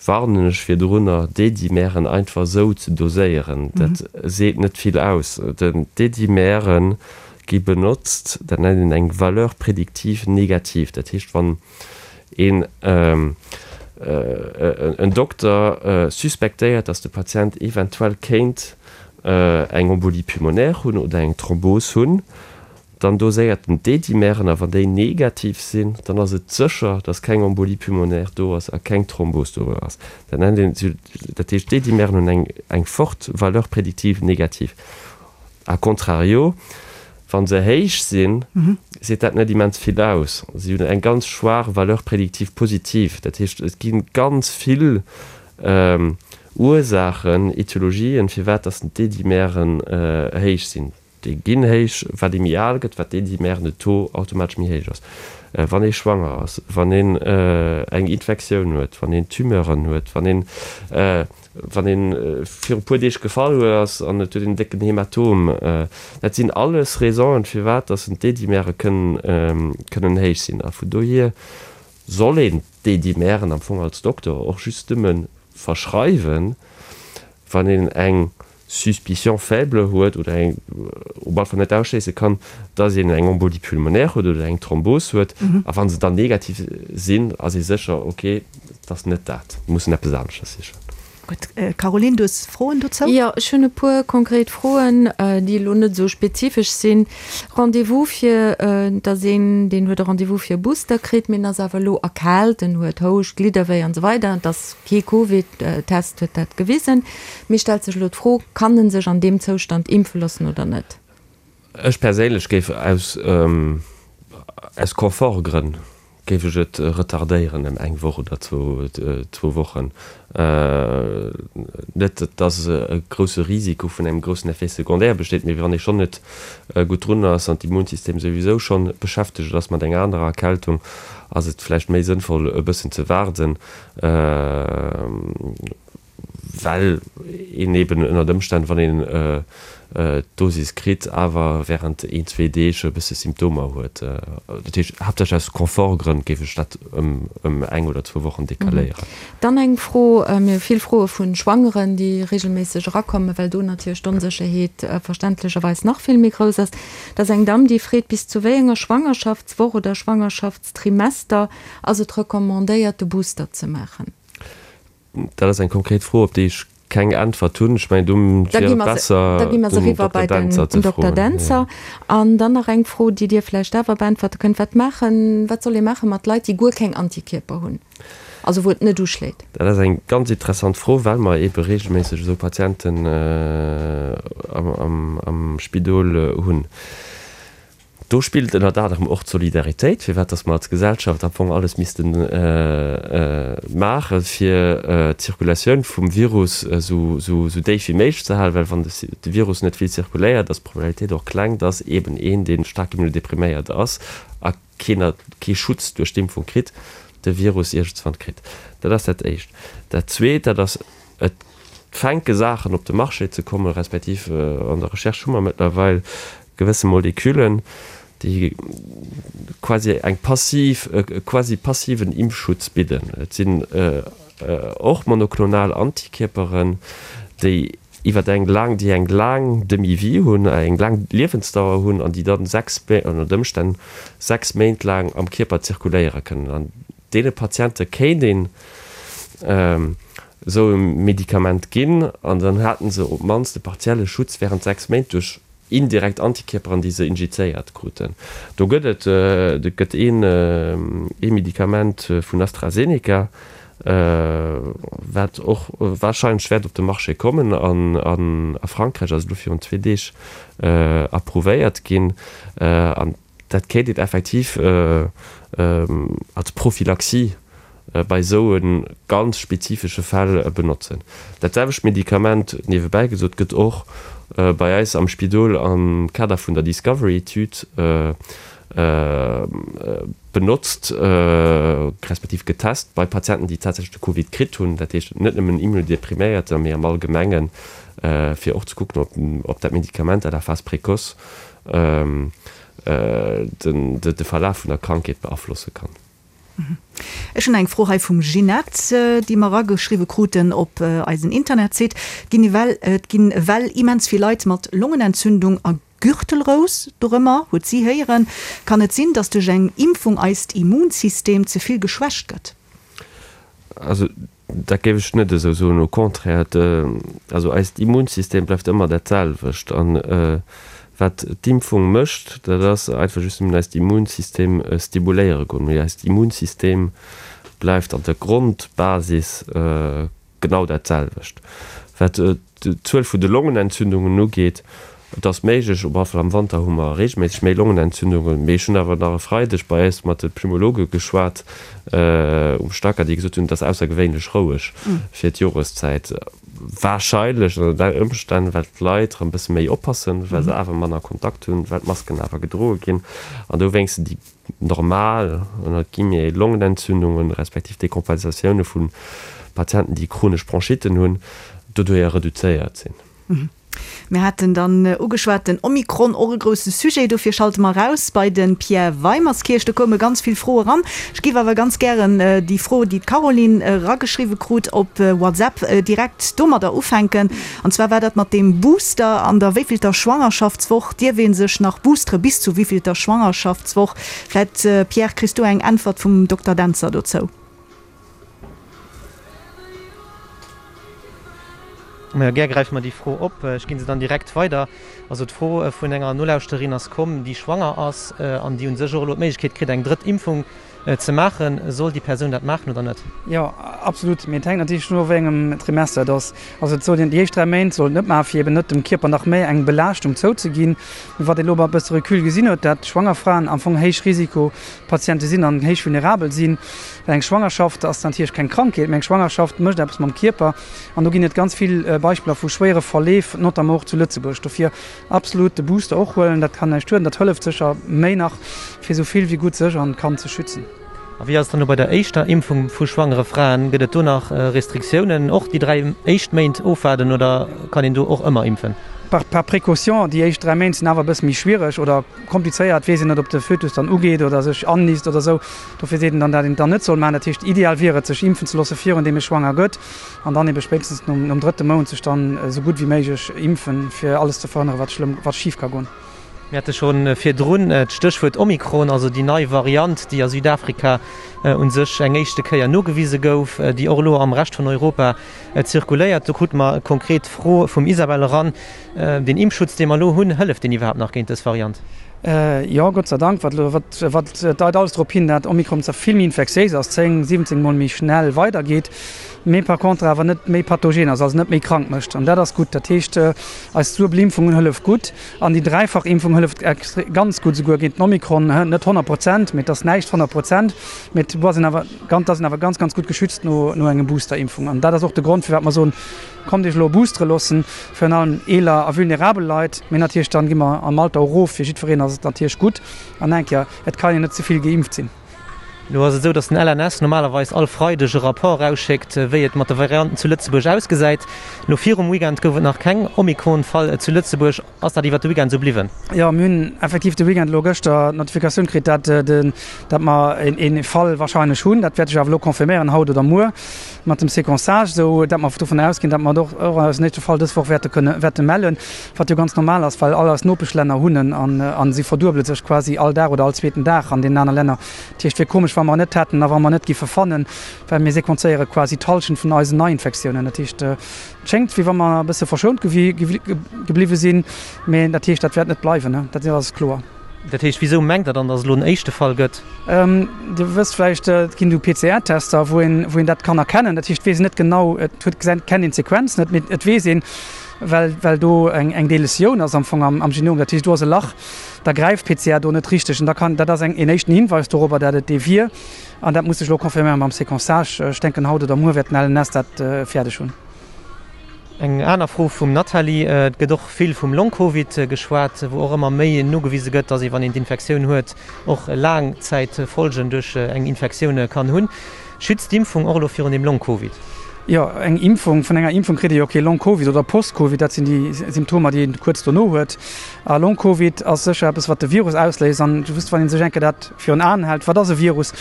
warnen ech virdrunner, Dedimären einfach esou ze doséieren. Dat seet net vill aus. D'Dedimäre gi benotzt, dat nennt een eng Valeur prédictive négative. Dat heescht, wann een en Dokter suspektéiert, datt de Patient eventuell kéint eng Embolie pulmonaire hunn oder eng Thrombos hunn,. Dann doséiert en d'Dedimeren a wann déi negativ sinn, dann ass et sécher, dass keng Embolie pulmonaire do ass a keng Thrombos do ass. Dat nennt een, dat heescht d'Dedimeren hunn eng eng forte Valeur prédictive négative. A contrario, wa se héich sinn, seet dat net immens vill aus. Si hunn eng ganz schwaach Valeur prédictive positive. Dat heescht, et gi ganz vill Ursaachen, Etiologien, firwat dass d'Dedimeren héich sinn. Déi ginn héich, wat ee méi al gëtt, wat d'Dedimeren, de Taux automatesch méi héich ass. Wann ee schwanger ass, wann een eng Infektioun huet, wann een Tumeuren huet, wann een, wann een viru puer Deeg gefall ass an et huet een en décken Hämatom, dat sinn alles Raisonen, firwat dass d'Dedimere kënnen, kënnen héich sinn. A vun dohier soll een d'Dedimeren am Fong als Dokter och just nëmme verschreiwen, wann een eng Suspicion faible huet oder eng op alle Fall net ausschléisse kann, dass een eng Embolie pulmonaire huet oder eng Thrombos huet. A wa se dann negativ sinn, ass ee sécher, ok, et ass net dat, mir mussen eppes aneschters sichen. Gutt. Caroline, du hues Froen dozou? Jo, ech hunn e puer konkret Froen, déi elo net esou spezifesch sinn. Rendez-vous fir, dass een, deen huet e Rendez-vous fir e Booster kritt, mee en ass awer elo erkaalt, en huet Houscht, Glidderwéi an esou weider, et ass Kee Covid-Test huet dat gewisen. Mee stellt sech elo d'Fro, Kann en sech an deem Zoustand impfe loossen oder net? Ech perséinlech géif aus aus Confort-Grënn géif ech et retardéieren ëm eng Woch oder zwou zwou Wochen. Net datt e grousse Risiko vun engem groussen Effet secondaire besteet, mee wann ee schonn net gutt drun ass an d'Immunsystem souwisou schonn beschäftegt ass mat enger anerer Erkältung, ass et vläicht méi sënnvoll e bëssen ze waarden. Well een eben ënnert Ëmstänn, wann een d'Dosis kritt, awer wärend een, zwee Deeg e bësse Symptomer huet. Dat heescht, haaptsächlech aus Confort-Grënn géif ech dat ëm eng oder zwou Wochen decaléieren. Dann eng Fro, Mir hu vill Froe vu Schwangeren, déi reegelméisseg erakommen, well do natierlech d'Onsécherheet verständlecherweis nach vill méi grouss ass. Dat ass eng Damm, déi freet, bis zu wéi enger Schwangerschaftswoch oder Schwangerschaftstrimester Ass et recommandéiert de Booster ze maachen? Dat ass eng konkret Fro, op déi ech keng Äntwert hunn. Ech mengen, do wier et besser, den Dokter Dentzer ze froen. Dentzer. An dann nach eng Fro, déi Dir vläicht awer beäntwerte kënnt, Wat maachen, wat soll ee maache mat Leit, déi guer keng Antikierper hunn, also wou et net uschléit? Dat ass eng ganz interessant Fro, well mer eebe reegelméisseg esou Patienten am Spidol hunn. Do spillt ënnert anerem och d'Solidaritéit, firwat dass mer als Gesellschaft am Fong alles misste maachen, fir d'Zirkulatioun vum Virus esou déif wéi méiglech ze halen, well wann de Virus net vill zirkuléiert, ass d'Probabilitéit och kleng, dass eeben een, dee staark immunodepriméiert ass a kee Schutz duerch d'Impfung kritt, de Virus iergendswann kritt. Dat ass dat Éischt. Dat Zweet, dat ass, Et fänke Saachen op de Marché ze kommen, respektiv an der Recherche hu mer mëttlerweil gewësse Moleküllen, déi quasi eng passiv, e quasi passiven Impfschutz bidden. Et sinn och monoklonal Antikierperen, déi iwwer eng laang, déi eng laang Demi-vie hunn, eng laang Liewensdauer hunn an déi dann 6, ënnert Ëmstänn 6 Méint laang am Kierper zirkuléiere kënnen. An deene Patiente kéint een esou e Medikament ginn an dann haten se op d'mannst e partielle Schutz während 6 Méint duerch indirekt Antikierperen, déi se injizéiert kruten. Do gëtt et et gëtt een ee Medikament vun AstraZeneca, wat och wahrscheinlech wäert op de Marché kommen an a Frankräich ass et elo virun zwee Deeg approuvéiert ginn an Dat kéint een effektiv als Prophylaxie bei esou e ganz spezifesche Fäll benotzen. Dat selwecht Medikament, niewebäi gesot, gëtt och bei eis am Spidol am Kader vun der Discovery-Etüd benotzt, respektiv getest bei Patienten, déi tatsächlech de Covid kritt hunn, dat heescht net nëmmen Immunodepriméierter, mee am Allgemengen, fir och ze kucken, ob dat Medikament à la phase précoce de Verlaf vun der Krankheet beaflosse kann. Ech hunn eng Fro hei vum Ginette, déi mer erageschriwwe kruten op eisen Internetsite. Et ginn et ginn ewell immens vill Leit mat Longenentzündung a Gürtelrous dorëmmer, huet si héieren. Kann et sinn, datt duerch eng Impfung eist Immunsystem ze vill geschwächt gëtt? Also Dat géif ech net esou soen, au contraire, also eist Immunsystem bleift ëmmer dat selwecht an. Wat d'Impfung mécht, dat ass einfach just nëmmen eist Immunsystem stimuléiere goen. Mee eist Immunsystem bleift an der Grondbasis genau dat selwecht. Wat d'Zuel vun de Longenentzündungen ugeet, et ass méiglech, op alle Fall am Wanter hu mer reegelméisseg méi Longenentzündungen, mee ech hunn awer nach e Freideg bei eis mat de Pneumologe geschwat um Stacker, déi gesot hunn, et ass aussergewéinlech roueg fir d'Joreszäit. Warscheinlech ënner den Ëmstänn, well d'Leit erëm e bësse méi oppassen, well se awer manner Kontakt hunn, well d'Masken awer gedroe ginn an dowéinst déi normal, ënnert guillemets, Longenentzündungen, respektiv Dekompensatioune vu Patienten, déi chronesch Bronchitten hunn, doduerjer reduzéiert sinn. Mir haten dann ugeschwat, den Omikron, och e grousse Sujet. Dofir schalte mer eraus bei de Pierre Weimerskirch. Do koume ganz vill Froe ran. Ech géif awer ganz gären déi Fro, déi d'Caroline erageschriwwe krut op WhatsApp, direkt domadder ufänken. An zwar war dat mat deem Booster. An der wéivillter Schwangerschaftswoch dierf ee sech nach boostere? Bis zu wéivillter Schwangerschaftswoch? Vläit, Pierre, kriss du eng Äntwert vum Dokter Dentzer dozou? Majo, gär gräife mer déi Fro op. Ech ginn se dann direkt weider. Also d'Fro vun enger Nolauschterin ass komm, déi schwanger ass an déi u sech och elo d'Méiglechkeet kritt, eng drëtt Impfung ze maachen. Soll déi Persoun dat maachen oder net? Jo, absolut. Mee et hänkt natierlech dovun of, wéi engem Trimester et ass. Also et sollt een déi éischt 3 Méint sollt et net maachen, fir eben net dem Kierper nach méi eng Belaaschtung zouzeginn. Mee wat ee elo mat e bësse Recul gesinn huet, dat schwanger Fraen am Fong héich Risikopatiente sinn an héich vulnerabel sinn. Well eng Schwangerschaft ass natierlech keng Krankheet, mee eng Schwangerschaft mécht eppes mam Kierper. An do ginn et ganz vill Beispiller vu schwéiere Verleef, notamment och zu Lëtzebuerg. Dofir absolut de Booster och huelen, dat kann näischt schueden, dat hëlleft sécher méi nach, fir esou vill wéi gutt sech an d'Kand ze schützen. A wéi ass et dann elo bei der éischter Impfung vu schwangere Fraen? Gëtt et do nach Restriktiounen? Och déi 3 éischt Méint ofwaarden oder kann een do och ëmmer impfen? Par par précaution, déi éischt 3 Méint sinn awer e bësse méi schwiereg oder komplizéiert, weess een net, ob de Fötus dann ugeet oder sech annisst oder esou. Dofir seet een dann, dat een et dann net soll maachen. Dat heescht, ideal wier et, sech impfen ze loosse virun deem ee schwanger gëtt an dann ebe spéitstens nom nom drëtte Mount sech dann esou gutt wéi méiglech impfen, fir alles ze verhënnere wat schlëmm, wat schif ka goen. Mir hate scho virdrun d'Stéchwuert Omikron, also déi nei Variant, déi a Südafrika u sech eng éischte Kéier nogewise gouf, déi och elo am Rescht vun Europa zirkuléiert. Do krute mer konkret d'Fro vum Isabel eran, Deen Impfschutz, dee mer elo hunn, hëlleft deen iwwerhaapt nach géint dës Variant? Jo, Gott sei Dank. Wat elo, wat, wat deit alles drop hin, dat Omikron zwar vill méi infektiéis ass, 10, 17 mol méi schnell weidergeet, mee par contre awer net méi pathogen ass, also net méi krank mécht. An dat ass gutt. Dat heescht, eis duebel Impfungen hëllef gutt an déi dräifach Impfung hëlleft extre ganz gutt esouguer géint den Omikron. Net 100 Prozent, mee et ass näischt 100 Prozent, mee et ass een awer ganz, ass een awer ganz, ganz gutt geschützt no, no engem Booster-Impfung. An dat ass och de Grond, firwat mer soen, Kommt iech elo boostere loossen, virun allem eeler a vulnerabel Leit, mee natierlech dann gi mer am Alter och erof, fir jiddwereen ass et natierlech gutt. An eng Kéier, et kann een net ze vill geimpft sinn. Elo ass et esou, datt den LNS normalerweis all Freideg e Rapport erausschéckt, wéi et mat de Varianten zu Lëtzebuerg ausgesäit. Elo virum Weekend gouf et nach keng Omikron-Fall zu Lëtzebuerg. Ass dat iwwert de Weekend esou bliwwen? Jo, mir hunn effektiv de Weekend elo gëschter d'Notifikatioun kritt, dat de, dat mer een Fall wahrscheinlech hunn. Dat wäert sech awer elo confirméieren, haut oder muer, mat dem Séquençage, esou dat mer dovun ausginn, dat mer och och eisen éischte Fall dës Woch wäerte kënne wäerte mellen, wat jo ganz normal ass, well all eis Nopeschlänner hunn en an an si verduebele sech quasi all Dag oder all zweeten Dag an deenen aner Länner. Dat heescht, wier komesch, wa mer en net hätten a wa mer en net giffe fannen, well mir sequenzéiere quasi d'Hallschent vun eisen Neiinfektiounen. Dat heescht, Et schéngt, wéi wa mer e bësse verschount gebliwwe sinn, mä dat heescht, dat wäert net bleiwen, dat ass kloer. Dat heescht, wisou mengt Der dann, datt et elo en éischte Fall gëtt? Dir wësst vläicht, et ginn esou PCR-Tester, wou een, wou een dat kann erkennen. Dat heescht, et weess een net genau, et huet, kennt een d'Sequenz net, mee et weess een, well, well do eng, eng Deletioun ass am Fong am, am Genom, dat heescht, do ass e Lach, da gräift d'PCR do net richteg an da kann, dat ass eng, een éischten Hinweis dorobber, dat et dee wier. An dat muss sech elo confirméieren mam Séquençage. Ech denken, haut oder muer wäert den LNS dat fäerdeg hunn. Eng aner Fro vum Nathalie, Et gëtt och vill vum Long-Covid geschwat, wou och ëmmer méi nogewise gëtt, datt ee wann een d'Infektioun huet, och Laangzäitfolgen duerch eng Infektioun kann hunn. Schützt d'Impfung och elo virun dem Long-Covid? Jo, eng Impfung, vun enger Impfung kritt ee jo kee Long-Covid oder Post-Covid, dat sinn déi Symptomer, déi een kuerz dono huet. A Long-Covid ass sécher eppes, wat de Virus ausléist. An just wann ee sech eng Kéier dat virun Aen hält, wat ass e Virus?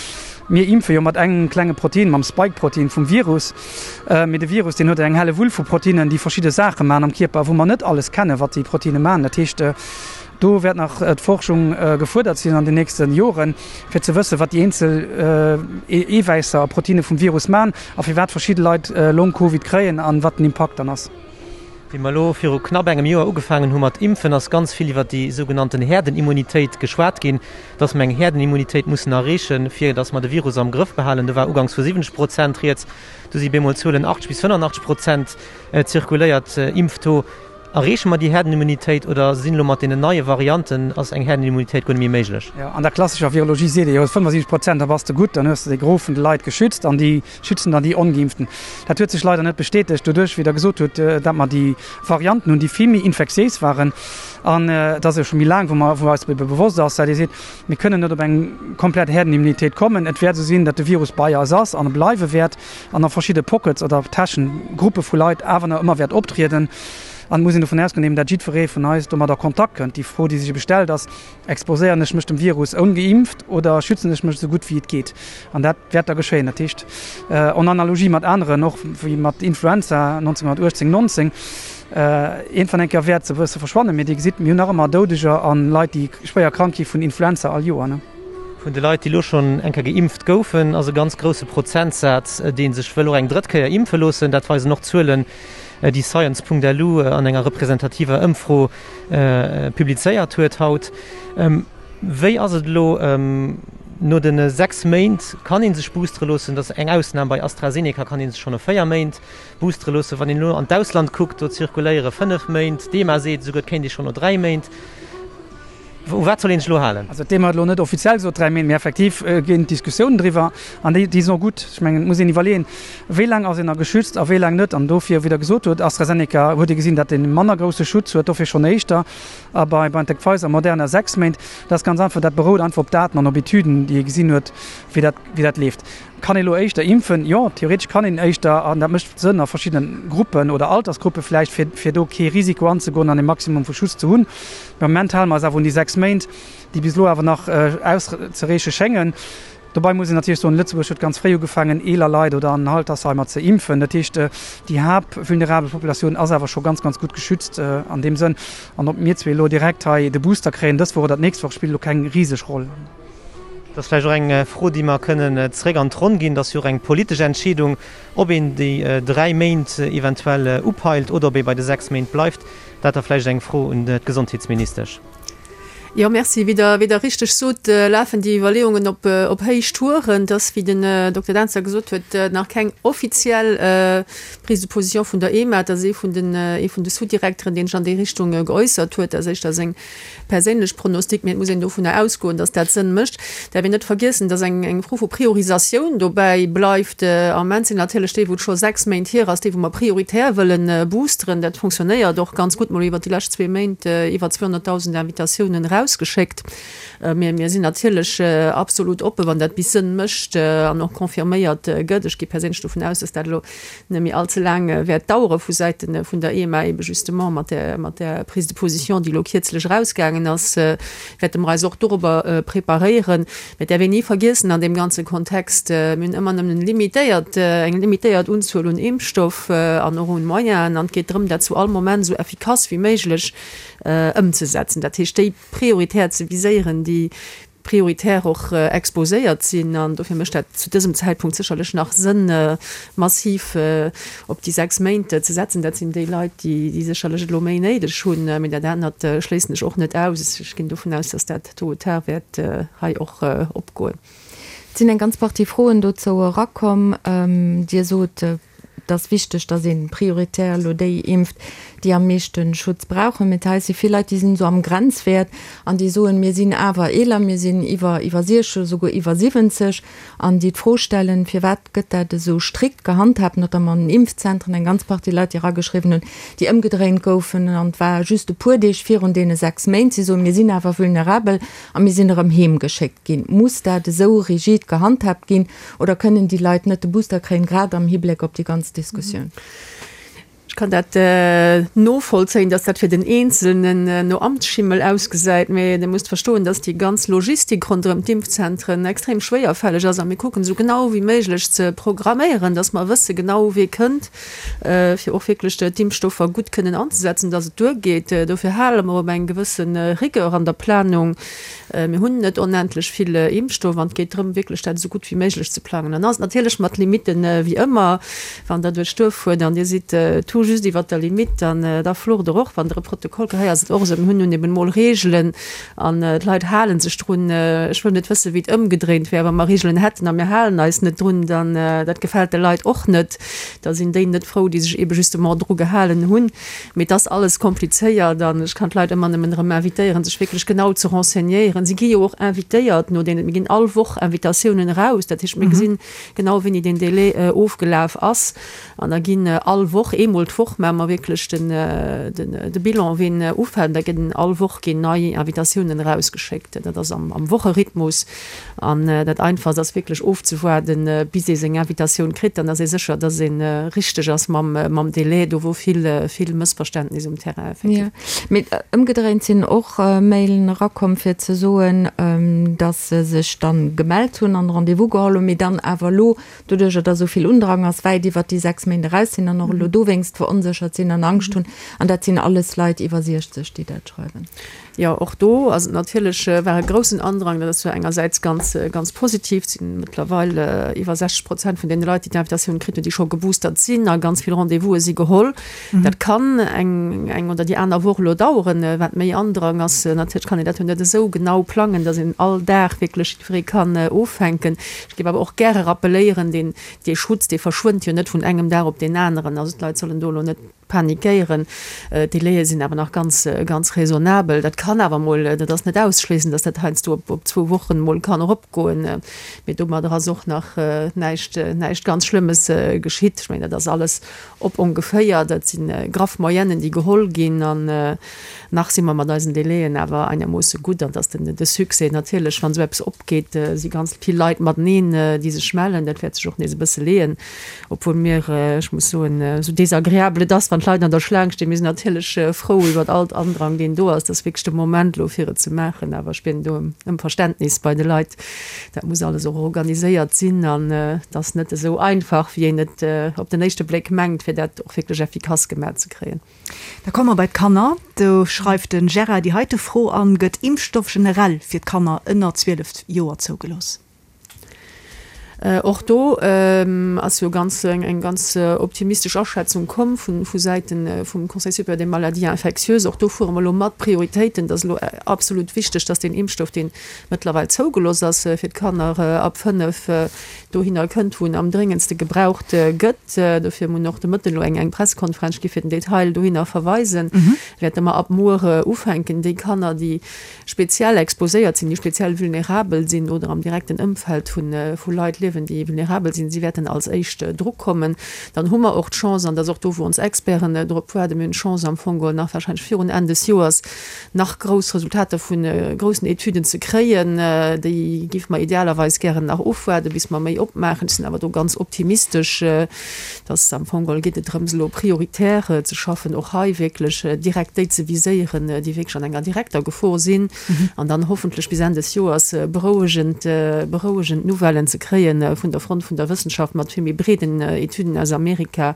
Mir impfe jo mat engem klenge Protein, mam Spike-Protein vum Virus. Mee de Virus, deen huet eng helle Wull vu Proteinen, déi verschidde Saache maachen am Kierper, wou mer net alles kennen, wat déi Proteine maachen. Dat heescht, do wäert nach d'Forschung gefuerdert sinn an den nächste Joren, fir ze wëssen, wat déi eenzel Eewäisser a Proteine vum Virus maachen a firwat verschidde Leit Long-Covid kréien an wat den Impakt dann ass. Wéi mer elo viru knapp engem Joer ugefaangen hu mat impfen, ass ganz vill iwwert déi sougenannten Häerdenimmunitéit geschwat ginn, dass mer eng Häerdenimmunitéit mussen erreechen, fir dass mer de Virus am Grëff behalen. Do war uganks vu 70 Prozent rieds, du si bemol Zuelen 80 bis 85 Prozent zirkuléiert. Impftaux. Erreeche mer déi Häerdenimmunitéit oder sinn elo mat deenen neie Varianten, ass eng Häerdenimmunitéit guer net méi méiglech? Jo, an der klassescher Virologie seet ee jo 75 Prozent, da bass de gutt, dann hues de de Gros vun de Leit geschützt an déi schützen dann déi Ongeimpften. Dat huet sech leider net bestätegt doduerch, wéi Der gesot hutt, datt mer déi Varianten hunn, déi vill méi infektiéis waren. An et ass jo scho méi laang, wou mer, wou eis ebe bewosst ass, dat ee seet, mir kënnen net op eng komplett Häerdenimmunitéit kommen. Et wäert esou sinn, datt de Virus bei eis ass an e bleiwe wäert. an a verschidde Pockets oder Täschen, Gruppe vu Leit awer nach ëmmer wäert optrieden. An et muss een dovun ausgoen, eben dat jiddweree vun eis domat a Kontakt kënnt. Déi Fro, déi sech ebe stellt, ass, Exposéieren ech mech dem Virus ongeimpft oder schützen ech mech esou gutt wéi et geet? An dat wäert da geschéien. Dat heescht, en Analogie mat aneren, och wéi mat Influenza 1918, 19, iergendwann eng Kéier wäert se e bësse verschwannen. Mee Dir gesitt, mir hunn nach ëmmer Doudeger a Leit, déi schwéier krank gi vun Influenza all Joer. Vun de Leit, déi elo schonn eng Kéier geimpft goufen, ass e ganz grousse Prozentsaz, dee sech wëll och eng drëtt Kéier impfe loossen. Dat weisen och Zuelen, déi Science.lu an enger representativer Ëmfro publizéiert huet haut. Wéi ass et elo no de 6 Méint? Kann ee sech boostere loossen? Dat ass eng Ausnam, bei AstraZeneca kann ee sech schonn no 4 Méint boostere loossen. Wann een elo an d'Ausland kuckt, do zirkuléiere 5 Méint. D'EMA seet esouguer, et kéint ee schonn no 3 Méint. U wat soll een sech elo halen? Also d'EMA huet elo net offiziell gesot 3 Méint, mee effektiv ginn d'Diskussiounen driwwer an déi déi sinn och gutt. Ech mengen, et muss een iwwerleeën, wéi laang ass een da geschützt a wéi laang net. An dofir, wéi Der gesot hutt, AstraZeneca huet ee gesinn, datt ee manner grousse Schutz huet, dofir schonn éischter a bei BioNTech Pfizer, Moderna 6 Méint. Dat ass ganz einfach, dat berout einfach op Daten an op Etüden, déi ee gesinn huet, wéi dat wéi dat leeft. Kann ee elo éischter impfen? Jo, theoretesch kann een éischter, an dat mécht Sënn a verschiddene Gruppen oder Altersgruppe vläicht, fir fir do kee Risiko anzegoen an e Maximum vu Schutz ze hunn. Mee am Moment hale mer eis awer un déi 6 Méint, déi bis elo awer nach auszereeche schéngen. Dobei muss een natierlech soen, Lëtzebuerg huet ganz fréi ugefaangen, eeler Leit oder an Altersheimer ze impfen. Dat heescht, déi haaptvulnerabel Populatioun ass awer scho ganz, ganz gutt geschützt an deem Sënn. An ob mir zwee elo direkt hei de Booster kréien dës Woch oder d'nächst Woch, spillt elo keng riseg Roll. Dat ass vläicht och eng Fro, déi mer kënnen zréck an d'Ronn ginn. Dat ass jo och eng politesch Entscheedung, ob een déi 3 Méint eventuell upeilt oder ob ee bei de 6 Méint bleift. Dat da vläicht eng Fro un d'Gesondheetsministesch. Jo, Merci. Wéi Der, wéi Der richteg sot, lafen déi Iwwerleeungen op, op Héichtouren. Et ass, wéi den Dokter Dentzer gesot huet, nach keng offiziell Prise de position vun der EMA. Et ass ee vun den, ee vun de Sous-Direkteren, deen sech an déi Richtung geäussert huet. Dat ass éischter seng perséinlech Pronostic, mee et muss een dovunner ausgoen, datt dat Sënn mécht. Däerf een net vergiessen, datt eng eng Fro vu Priorisatioun dobäi bleift. Am Moment sinn natierlech déi, wou et scho 6 Méint hier ass, déi wou mer prioritär wëllen boosteren. Dat fonctionnéiert och ganz gutt. Mer hu iwwert déi lescht zwee Méint iwwer 200.000 Invitatiounen erausgeschéckt. Mee mir sinn natierlech absolut oppen, wann dat bis Sënn mécht an och confirméiert gëtt. Ech gi perséinlech dovun aus, datt dat elo net méi all ze laang wäert dauere vu Säite vun der EMA, ebe justement mat där, mat där Prise de position, déi elo kierzlech erausgaangen ass, wäerte mer eis och dorobber preparéieren. Mä et däerf een ni vergiessen an deem ganze Kontext, mir hunn ëmmer nëmmen limitéiert, eng limitéiert Unzuel un Impfstoff an och un Moyenen an et geet drëm, dat zu all Moment esou effikass wéi méiglech ëmzesetzen. Dat heescht, déi prioritär ze viséieren, déi prioritär och exposéiert sinn. An dofir mécht dat zu dësem Zäitpunkt sécherlech nach Sënn, massiv op déi 6 Méint ze setzen. Dat sinn déi Leit, déi sécherlech et elo méi néideg hunn. Mee dat anert schléissen ech och net aus. Ech ginn dovun aus, dass dat tôt ou tard wäert hei och opgoen. Et sinn eng ganz Partie Froen dozou erakomm. Dir sot, Et ass wichteg, datt ee prioritär elo déi impft, déi am meeschte Schutz brauchen. Mee hei si vill Leit, déi sinn esou am Grenzwäert an déi soen, mir sinn awer eeler, mir sinn iwwer iwwer 60, esouguer iwwer 70, an déi d'Fro stellen, firwat gëtt dat esou strikt gehandhaabt, notamment an den Impfzentren, eng ganz Partie Leit, déi erageschriwwen hunn, déi ëmgedréint goufen an et war just e puer Deeg virun deene 6 Méint. Si soen, mir sinn awer vulnerabel a mir sinn erëm heemgeschéckt ginn. Muss dat esou rigid gehandhaabt ginn? Oder kënnen déi Leit net de Booster kréien, grad am Hibléck op déi ganz Diskussioun? Ech kann dat novollzéien, dass dat fir den Eenzelnen no Amtsschimmel ausgesäit, mä Dir musst verstoen, dass déi ganz Logistik ronderëm d'Impfzentren extrem schwéierfälleg ass a mir kucken esou genau wéi méiglech ze programméieren, dass mer wësse genau wee kënnt, fir och wierklech d'Impfstoffer gutt kënnen anzesetzen, dass et duergeet. Dofir hale mer op eng gewësse Rigueur an der Planung. Mir hunn net onendlech vill Impfstoff an et geet drëm, wierklech dat esou gutt wéi méiglech ze plangen. Dann ass et natierlech mat Limitten, wéi ëmmer, wann Der duerch d'Duerf fuert an Dir sidd et hu just iwwert der Limitt, dann da flucht Der och, wann Der e Protokoll kritt. Hei ass et och esou, mir hunn nun eben emol Reegelen an d'Leit hale sech drun. Ech wëll net wëssen, wéi et ëmgedréint wär, wa mer Reegelen hätten a mir halen eis net drun, dann dat gefält de Leit och net. Da sinn déi net frou, déi sech ebe justement dru gehalen hunn. Mee et ass alles komplizéiert an ech kann d'Leit ëmmer nëmmen erëm invitéieren, sech wierklech genau ze renseignéieren. Si gi jo och invitéiert no deenen, mir ginn all Woch Invitatiounen eraus, dat heescht, mir gesinn genau, wéini deen Délai ofgelaf ass. An da ginn all Woch, eemol d'Woch maache mer wierklech den, de Bilan, wien ufält. Da ginn all Woch ginn nei Invitatiounen erausgeschéckt. Dat ass am, am Wocherhythmus. An dat Einfachst ass wierklech ofzewaarden, bis ee seng Invitatioun kritt. Dann ass ee sécher, dass ee richteg ass mam, mam Délai. Do wor vill, vill Mëssverständnis um Terrain effektiv. Jo, mee ëmgedréint sinn och Mailen erakomm, fir ze soen, dass se sech dann gemellt hunn an Rendez-vous geholl hunn, mee dann awer elo, doduercher dass esou vill Undrang ass, wäit iwwert déi 6 Méint eraus sinn an och elo dowéinst veronséchert sinn an Angscht hunn. An dat sinn alles Leit iwwer 60, déi dat schreiwen. Jo, och do ass et natierlech, war e groussen Andrang. Dat ass zwar engersäits ganz, ganz positiv, et si mëttlerweil iwwer 60 Prozent vun deene Leit, déi d'Invitatioun kritt hunn, déi scho geboostert sinn a ganz vill Rendez-vouse si geholl. Dat kann eng, eng oder déi aner Woch elo daueren, wat méi Andrang ass. Natierlech kann een dat jo net esou genau plangen, datt een all Dag wierklech jiddweree kann offänken. Ech géif awer och gäre rappeléieren, deen, dee Schutz, dee verschwënnt jo net vun engem Dag op deen aneren. Also d'Leit sollen do elo net panikéieren. D'Délaië sinn awer nach ganz, ganz raisonnabel. Dat kann awer mol, dat ass net ausschléissen, datt dat heiansdo op, op zwou Wochen mol kann eropgoen. Mee domadder ass och nach näischt, näischt ganz Schlëmmes geschitt. Ech mengen, dat ass alles op ongeféier, dat si graff Moyennen, déi geholl ginn. An nach si mer mat eisen Délaiën awer einermoosse gutt. An dass den, de Succès natierlech, wann esou eppes opgeet, si ganz vill Leit mateneen, déi sech mellen. Dat wäert sech och nees e bësse leeën. Obwuel mir, ech muss soen, esou désagréabel et ass, wann d'Leit an der Schlaang stinn, mir sinn natierlech frou iwwert all Andrang, deen do ass. Dat ass wierklech de Moment elo, fir et ze maachen. Awer ech bieden do ëm Verständnis bei de Leit. Dat muss alles och organiséiert sinn an et ass net esou einfach, wéi een et op den éischte Bléck mengt, fir dat och wierklech effikass gemaach ze kréien. Da komme mer bei d'Kanner. Do schreift de Gérard déi heite Fro an, Gëtt Impfstoff generell fir d'Kanner ënner 12 Joer zougelooss? Och do ass jo ganz eng ganz optimistesch Aschätzung komm vu Säite vum Conseil supérieur des maladies infectieuses. Och do fuere mer elo mat Prioritéiten. Et ass elo absolut wichteg, dass deen Impfstoff, deen mëttlerweil zougelooss ass fir d'Kanner ab 5, dohinner kënnt, wou en am dréngendste gebraucht gëtt. Dofir hunn och de Mëtten elo eng Pressekonferenz gi fir den Detail dohinner verweisen. Wäerte mer ab muer ufänken, déi Kanner, déi speziell exposéiert sinn, déi speziell vulnerabel sinn oder am direkten Ëmfeld vu Leit liewen, déi vulnerabel sinn, si wäerten als éischt drukommen. Dann hu mer och d'Chance, an dat ass och do, wou ons Experten drop waarden, mir hunn d'Chance am Fong geholl nach wahrscheinlech virun Enn des Joers nach grouss Resultater vu groussen Etüden ze kréien. Déi géife mer idealerweis gären nach ofwaarden, bis mer méi opmaachen. Ech sinn awer do ganz optimistesch. Dass am Fong geholl geet et drëms, elo prioritär ze schaffen, och hei wierklech direkt déi ze viséieren, déi wierklech an enger direkter Gefor sinn, an dann hoffentlech bis Enn des Joers berouegend, berouegend Nouvellen ze kréie vun der Front vun der Wëssenschaft mat vill méi breeden Etüden aus Amerika,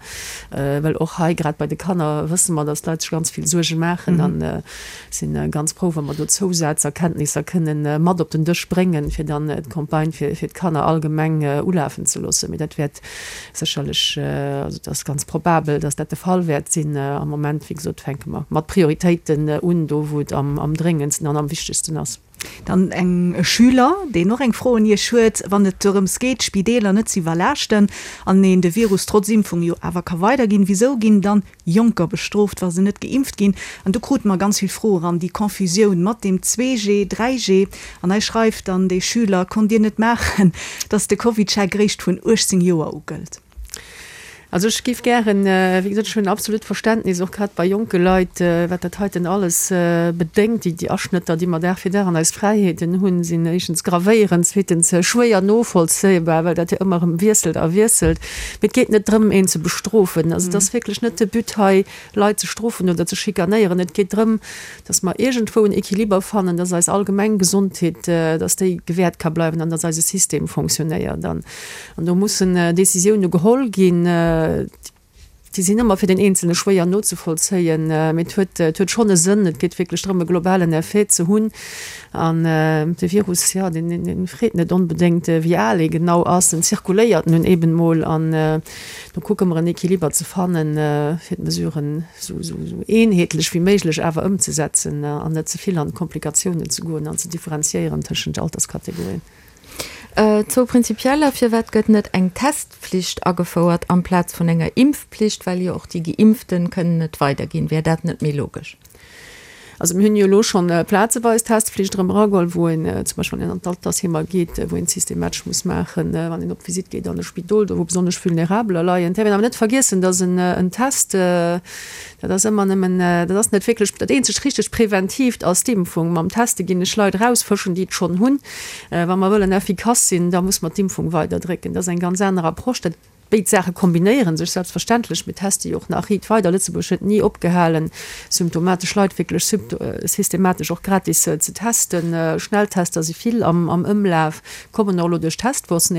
well och hei, grad bei de Kanner, wësse mer, dass d'Leit sech ganz vill Suerge maachen a si ganz frou, wa mer do Zousazerkenntnisser kënnen mat op den Dësch bréngen, fir dann d'Campagne fir d'Kanner allgemeng ulafen ze loossen. Mee dat wäert Sécherlech, also et ass ganz probabel, datt dat de Fall wäert sinn. Am Moment, wéi gesot, fänke mer mat Prioritéiten un, do wou et am dréngendsten an am wichtegsten ass. Dann eng e Schüler, deen och eng Fro un Iech huet, Wann et dorëms geet, d'Spideeler net ze iwwerlaaschten an een de Virus trotz Impfung jo awer ka weiderginn, wisou ginn dann Jonker bestrooft, wa se net geimpft ginn. An do krute mer ganz vill Froe ran, déi Confusioun mat deem 2G, 3G. An hei schreift dann dee Schüler, Konnt Dir net maachen, dass de CovidCheck réischt vun 18 Joer u gëllt? Also ech géif gären, wéi gesot, ech hunn absolut Verständnis, och grad bei jonke Leit, wat dat heiten alles bedéngt. Déi Aschnëtter, déi mer Dag fir Dag an eis Fräiheeten hunn, sinn éischtens gravéierend, zweetens schwéier novollzéibar, well dat jo ëmmer erëm wiesselt a wiesselt. Mee et geet net drëm, een ze bestrofen. Also et ass wierklech net de But hei, Leit ze strofen oder ze schikanéieren. Et geet drëm, dass mer iergendwou en Equiliber fannen, dass eis allgemeng Gesondheet, dass déi gewährt ka bleiwen an dass eise System fonctionnéiert. An do mussen Décisioune geholl ginn. Déi sinn ëmmer fir den Eenzelne schwéier nozevollzéien, mee et huet, et huet schonn e Sënn. Et geet wierklech drëm, e globalen Effet ze hunn. An de Virus, jo, deen, deen freet net onbedéngt, wéi al ee genau ass. En zirkuléiert nun eben mol. An do kucke mer, en Equiliber ze fannen, fir d'Mesuren esou, esou, esou eenheetlech wéi méiglech awer ëmzesetzen an net ze vill an d'Komplikatiounen ze goen an ze differenziéieren tëschent Alterskategorien. Zwou prinzipieller, Firwat gëtt net eng Testflicht agefouert amplaz vun enger Impfpflicht, well jo och déi Geimpften kënnen et weiderginn? Wär dat net méi logesch? Also mir hunn jo elo schonn plazeweis Testflicht erëm erageholl, wou een zum Beispill wann een an d'Altersheemer geet, wou een et systematesch muss maachen, wann een op Visitt geet an e Spidol, do wou besonnesch Vulnerabeler leien. Et däerf een awer net vergiessen, datt en Test, Dat ass ëmmer nëmmen, dat ass net wierklech, dat eenzegt richteg Preventiivt ass d'Impfung. Mam Teste ginn ech Leit erausfëschen, déi et schonn hunn. Wa mer wëllen effikass sinn, da muss mer d'Impfung weiderdrécken. Dat ass eng ganz aner Approche. Dat, béid Saache kombinéiere sech selbstverständlech. Mir teste jo och nach riit weider. Lëtzebuerg huet ni opgehalen, symptomatesch Leit wierklech systematesch och gratis ze testen. Schnelltester si vill am Ëmlaf, kommen och elo duerch d'Testboursen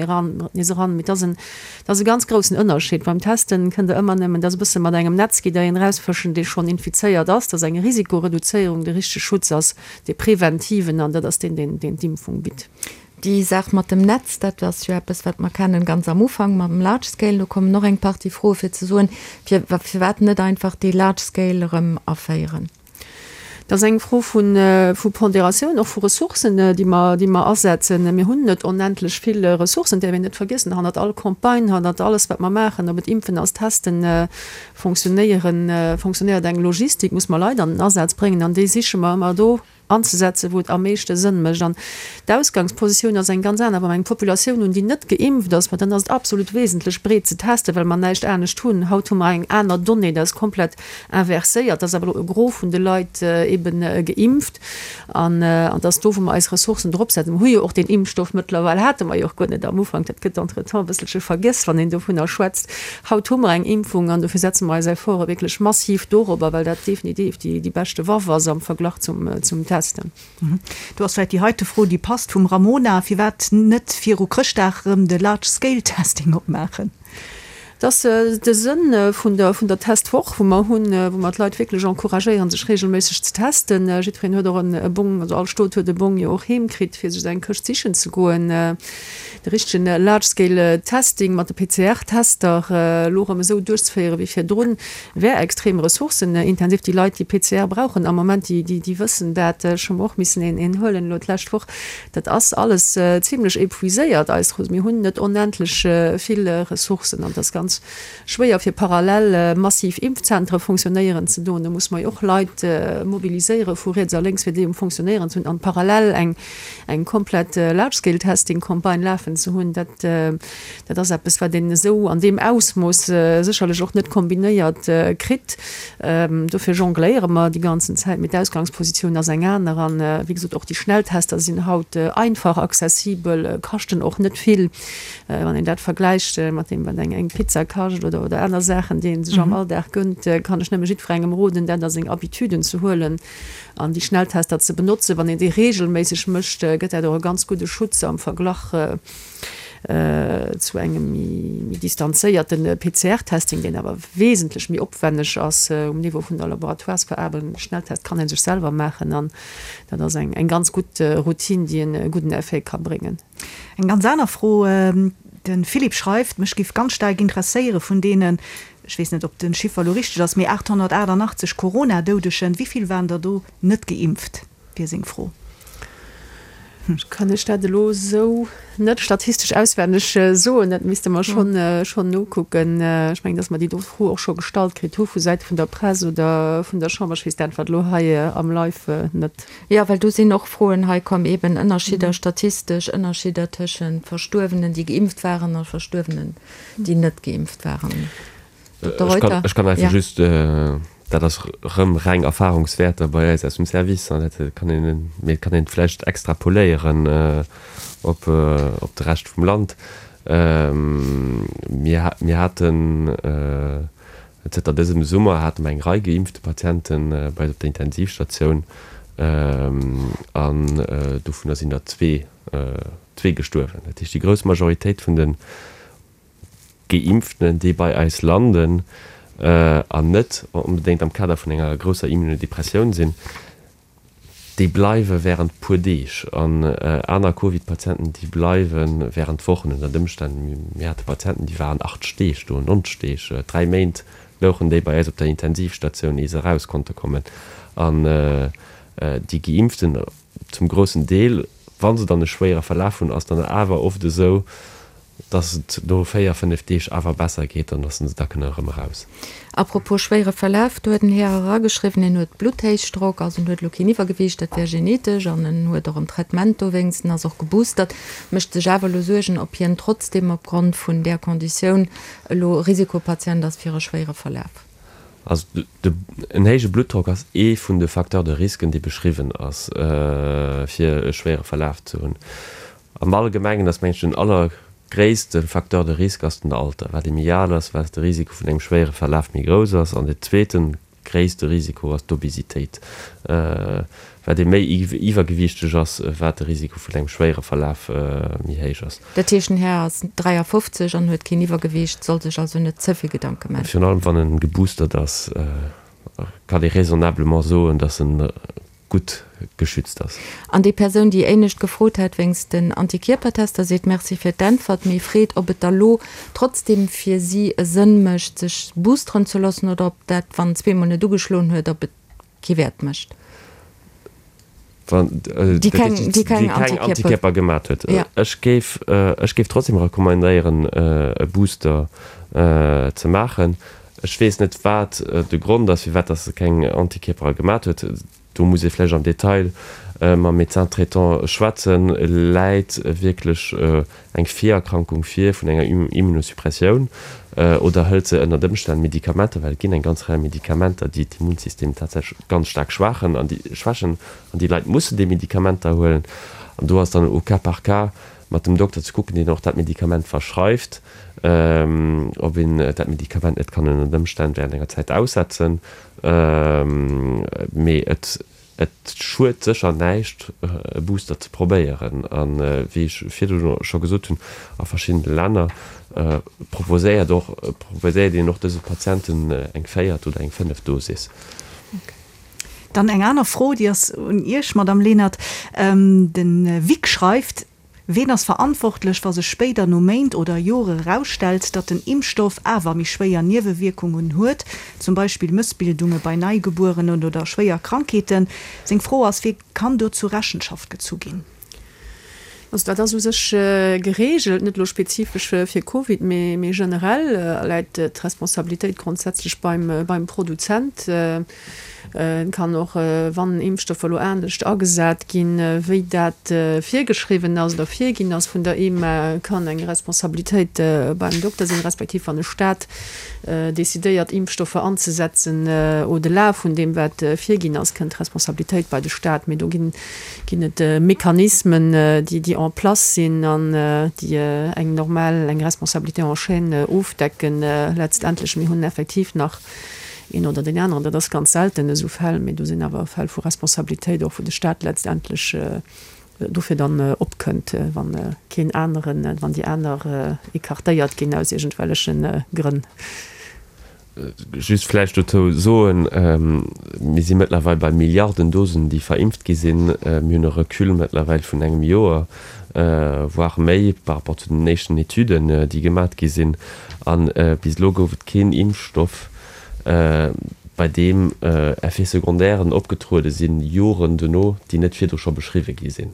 nees eran. Mee et ass en Dat ass e ganz groussen Ënnerscheed. Beim Testen kënnt Der ëmmer nëmmen, dat ass e bësse mat engem Netz, gitt Der een erausfëschen, dee schonn infizéiert ass. Dat ass eng Risikoreduzéierung. De richtege Schutz ass dee preventiven an dat ass deen, deen deen d'Impfung bitt. Déi Saach mat dem Netz, dat ass jo eppes, wat mer kennen ganz am Ufank mam Large Scale. Do kommen och eng Partie Froe fir ze soen, fir firwat net einfach dee Large Scale erëm aféieren. Dat ass eng Fro vu Ponderatioun, och vu Ressourcen, déi mer, déi mer asetzen. Mir hunn net onendlech vill Ressourcen, däerf een net vergiessen. Hannert all Campagne, hannert alles, wat mer maachen, ob et Impfen ass, Testen, fonctionnéieren, fonctionnéiert eng Logistik, muss mer Leit an den Asaz bréngen an déi siche mer ëmmer do anzesetzen, wou et am meeschte Sënn mécht. An d'Ausgangspositioun ass eng ganz aner. Wa mer eng Populatioun hunn, déi net geimpft ass, ma dann ass et absolut wesentlech, breet ze testen, well mer näischt anescht hunn. Haut hu mer eng aner Donnée, dat ass komplett Inverséiert, ass awer elo e Gros vun de Leit eben geimpft an et ass do, wou mer eis Ressourcen drop setzen. Mer hu jo och deen Impfstoff mëttlerweil, hate mer jo och guer net am Ufank, dat gëtt entretemps e bësselche vergiess, wann een dovunner schwätzt. Haut hu mer eng Impfung an dofir setze mer eis Efforte wierklech massiv dorobber, well dat definitiv déi beschte Waff ass am Verglach zum Testen. Do ass vläicht déi heite Fro, déi passt, vum Ramona, Firwat net viru Chrëschtdag erëm de Large Scale Testing opmaachen? Et ass de Sënn vun der vun der Testwoch, wou mer hunn, wou mer d'Leit wierklech encouragéieren, sech reegelméisseg ze testen. Jiddwereen huet och e Bong, also all Stot huet e Bong jo och heem kritt, fir sech eng Këscht sichen ze goen. De richtegen Large Scale Testing mat de PCR-Tester elo erëm esou duerchzeféiere wéi virdrun, wär extrem ressourcenintensiv. Déi Leit, déi PCR brauchen am Moment, déi déi wëssen dat. Ech hu mer och missen een een huelen elo d'lescht Woch. Dat ass alles zimlech épuiséiert, eis Ressourcen. Mir hunn net onendlech vill Ressourcen an et ass ganz schwéier fir parallel massiv Impfzentere fonctionnéieren ze doen. Do muss mer jo och Leit mobiliséiere vu riets a lénks, fir déi um Fonctionnéieren ze hunn an parallel eng eng komplett Large-Scale-Testing-Campagne lafen ze hunn. Dat dat ass eppes, wat een esou an deem Ausmooss sécherlech och net kombinéiert kritt. Dofir jongléiere mer déi ganzen Zäit, mee d'Ausgangspositioun ass eng aner. An, wéi gesot, och déi Schnelltester sinn haut einfach accessibel, kaschten och net vill, wann een dat vergläicht mat deem, wat eng Pizza kascht oder oder aner Saachen, déi ee sech am Alldag gënnt, kann ech nëmme jiddwerengem roden, dat a seng Habituden ze huelen an déi Schnelltester ze benotzen. Wann een déi reegelméisseg mécht, gëtt dat och e ganz gudde Schutz am Verglach zu engem méi distanzéierte PCR-Testing, deen awer wesentlech méi opwenneg ass um Niveau vun der Laboratoiresveraarbechtung. De Schnelltest kann ee sech selwer maachen an dat ass eng ganz gutt Routine, déi e gudden Effet ka bréngen. Eng ganz aner Fro, De Philippe schreift, Mech giff ganz staark interesséiere vun deenen, ech weess net ob de Chiffer elo richteg ass, mee 888 Corona-Doudegen, wéi vill waren der do net geimpft? wier seng Fro. Ech kann lech dat elo esou net statistesch auswenneg soen. Dat misste mer schonn, schonn nokucken. Ech mengen, datt mer déi do Fro och scho gestallt kritt hu vu Säite vun der Press oder vun der Chamber. Ech weess d'Äntwert elo hei am Live net. Jo, well do sinn och Froen hei komm, eeben Ënnerschidder, statistesch Ënnerschidder tëschent Verstuerwenen, déi geimpft waren, a Verstuerwenen, déi net geimpft waren. Dokter Reuter? Ech kann einfach just, dat ass erëm reng Erfahrungswäerter bei eis aus dem Service, an dat kann een, mee et kann een et vläicht extrapoléieren op de Rescht vum Land. Mir, mir haten zënter dësem Summer hate mer eng Rei geimpfte Patiente bei eis op der Intensivstatioun an dovunner sinn der zwee, zwee gestuerwen. Dat heescht, déi grouss Majoritéit vun de Geimpften, déi bei eis landen. an net onbedéngt am Kader vun enger grousser Immunodepressioun sinn, déi bleiwe wärend puer Deeg. An aner Covid-Patienten, déi bleiwe wärend Wochen ënnert Ëmstänn. Mir hate Patienten, déi waren 80 Deeg do, 90 Deeg, 3 Méint louchen déi bei eis op der Intensivstatioun, ier se eraus konnte kommen. An déi Geimpften zum groussen Deel, wa se dann e schwéiere Verlaf hunn, ass dann awer oft esou, dass et no 4, 5 Deeg awer besser geet an dass se da kënne erëm eraus. A propos schwéiere Verlaf, do huet en Här erageschriwwen, en huet Blutthéichdrock, also en huet elo keen Iwwergewiicht, dat wär genetesch, an en huet och en Traitement dowéinst, en ass och geboostert, mécht sech awer elo Suergen, ob hien trotzdeem opgrond vun där Konditioun elo Risikopatient ass fir e schwéiere Verlaf. Also en héije Bluttdrock ass ee vun de Facteurs de risque, dee beschriwwen ass, fir e schwéiere Verlaf ze hunn. Am Allgemengen ass, mengen ech, den allergréisste Facteur de risque ass den Alter. Wat ee méi al ass, wat de Risiko vun engem schwéiere Verlaf méi grouss ass. An deen zweete gréisste Risiko ass d'Obesitéit. Wat ee méi iwwergewiichteg ass, wat de Risiko vun engem schwéiere Verlaf méi héich ass. Dat heescht, den Här ass 53 an huet keen Iwwergewiicht, soll sech also net ze vill Gedanke maachen. Virun allem wann en geboostert ass, kann ee raisonnablement soen, datt en gutt geschützt ass. An déi Persoun, déi éinescht gefrot hat wéinst den Antikierpertester, seet Merci fir d'Äntwert, mee freet, ob et da lo trotzdem fir si e Sënn mécht, sech boosteren ze loossen oder ob dat, wann en zweemol net ugeschloen huet, ob et kee Wäert mécht. Wann déi keng Antikierper gemat huet. Ech géif, ech géif trotzdem recommandéieren, e Booster ze maachen. Ech weess net, wat de Grond ass, firwat dass se keng Antikierpere gemat huet. Do muss ee vläicht am Detail mam Médecin traitant schwätzen. Läit wierklech eng Virerkrankung vir vun enger Immunosuppressioun oder hëlt se ënnert Ëmstänn Medikamenter, well et ginn eng ganz Rei Medikamenter, déi d'Immunsystem tatsächlech ganz staark schwaachen an déi schwächen an déi Leit mussen déi Medikamenter huelen. An do ass dann au cas par cas mat dem Dokter ze kucken, deen och dat Medikament verschreift, ob een dat Medikament net kann ënnert Ëmstänn während enger Zäit aussetzen. Mee et et schued sécher näischt, e Booster ze probéieren. A wéi ech virdru scho gesot hunn, a verschiddene Länner proposéiert och proposéiert een och dëse Patienten eng véiert oder eng fënneft Dosis. Dann eng aner Fro, déi ass un Iech, Madamm Lenert. De Vic schreift, Ween ass verantwortlech, wa sech spéider no Méint oder Jore erausstellt, datt den Impfstoff awer méi schwéier Niewewierkungen huet, zum Beispill Mëssbildunge bei Neigebuerenen oder schwéier Krankheeten? Seng Fro ass, Wie kann do zu Rechenschaft gezu ginn? Also dat ass u sech geregelt, net elo spezifesch fir Covid, mee generell läit d'Responsabilitéit grondsätzlech beim Produzent. Et kann och, wann Impfstoffer elo anescht agesat ginn, wéi dat virgeschriwwen ass oder virginn ass vun der EMA, kann eng Responsabilitéit beim Dokter sinn, respektiv wann e Staat decidéiert, Impfstoffer anzesetzen au-delà vun deem, wat virginn ass, kënnt d'Responsabilitéit bei de Staat. Mee do ginn ginn et Mechanismen, déi déi en place sinn an déi eng normal, eng Responsabilité en chaîne ofdecken letztendlech. Mir hunn effektiv nach een oder deen aneren, dat ass ganz selten esou Fäll, mee do sinn awer Fäll vu Responsabilitéit och, wou de Stat letztendlech dofir dann opkënnt, wa keen aneren, wann déi aner écartéiert ginn aus iergendwelleche Grënn. Just vläicht dozou soen, Mir si mëttlerweil bei Milliarden Dosen, déi verimpft gi sinn. Mir hunn e Recul mëttlerweil vun engem Joer, voire méi, par rapport zu den éischten Etüden, déi gemat gi sinn. A bis elo gouf et keen Impfstoff, bei deem Effets secondairen opgetruede sinn, Joren dono, déi net virdru scho beschriwwe gi sinn.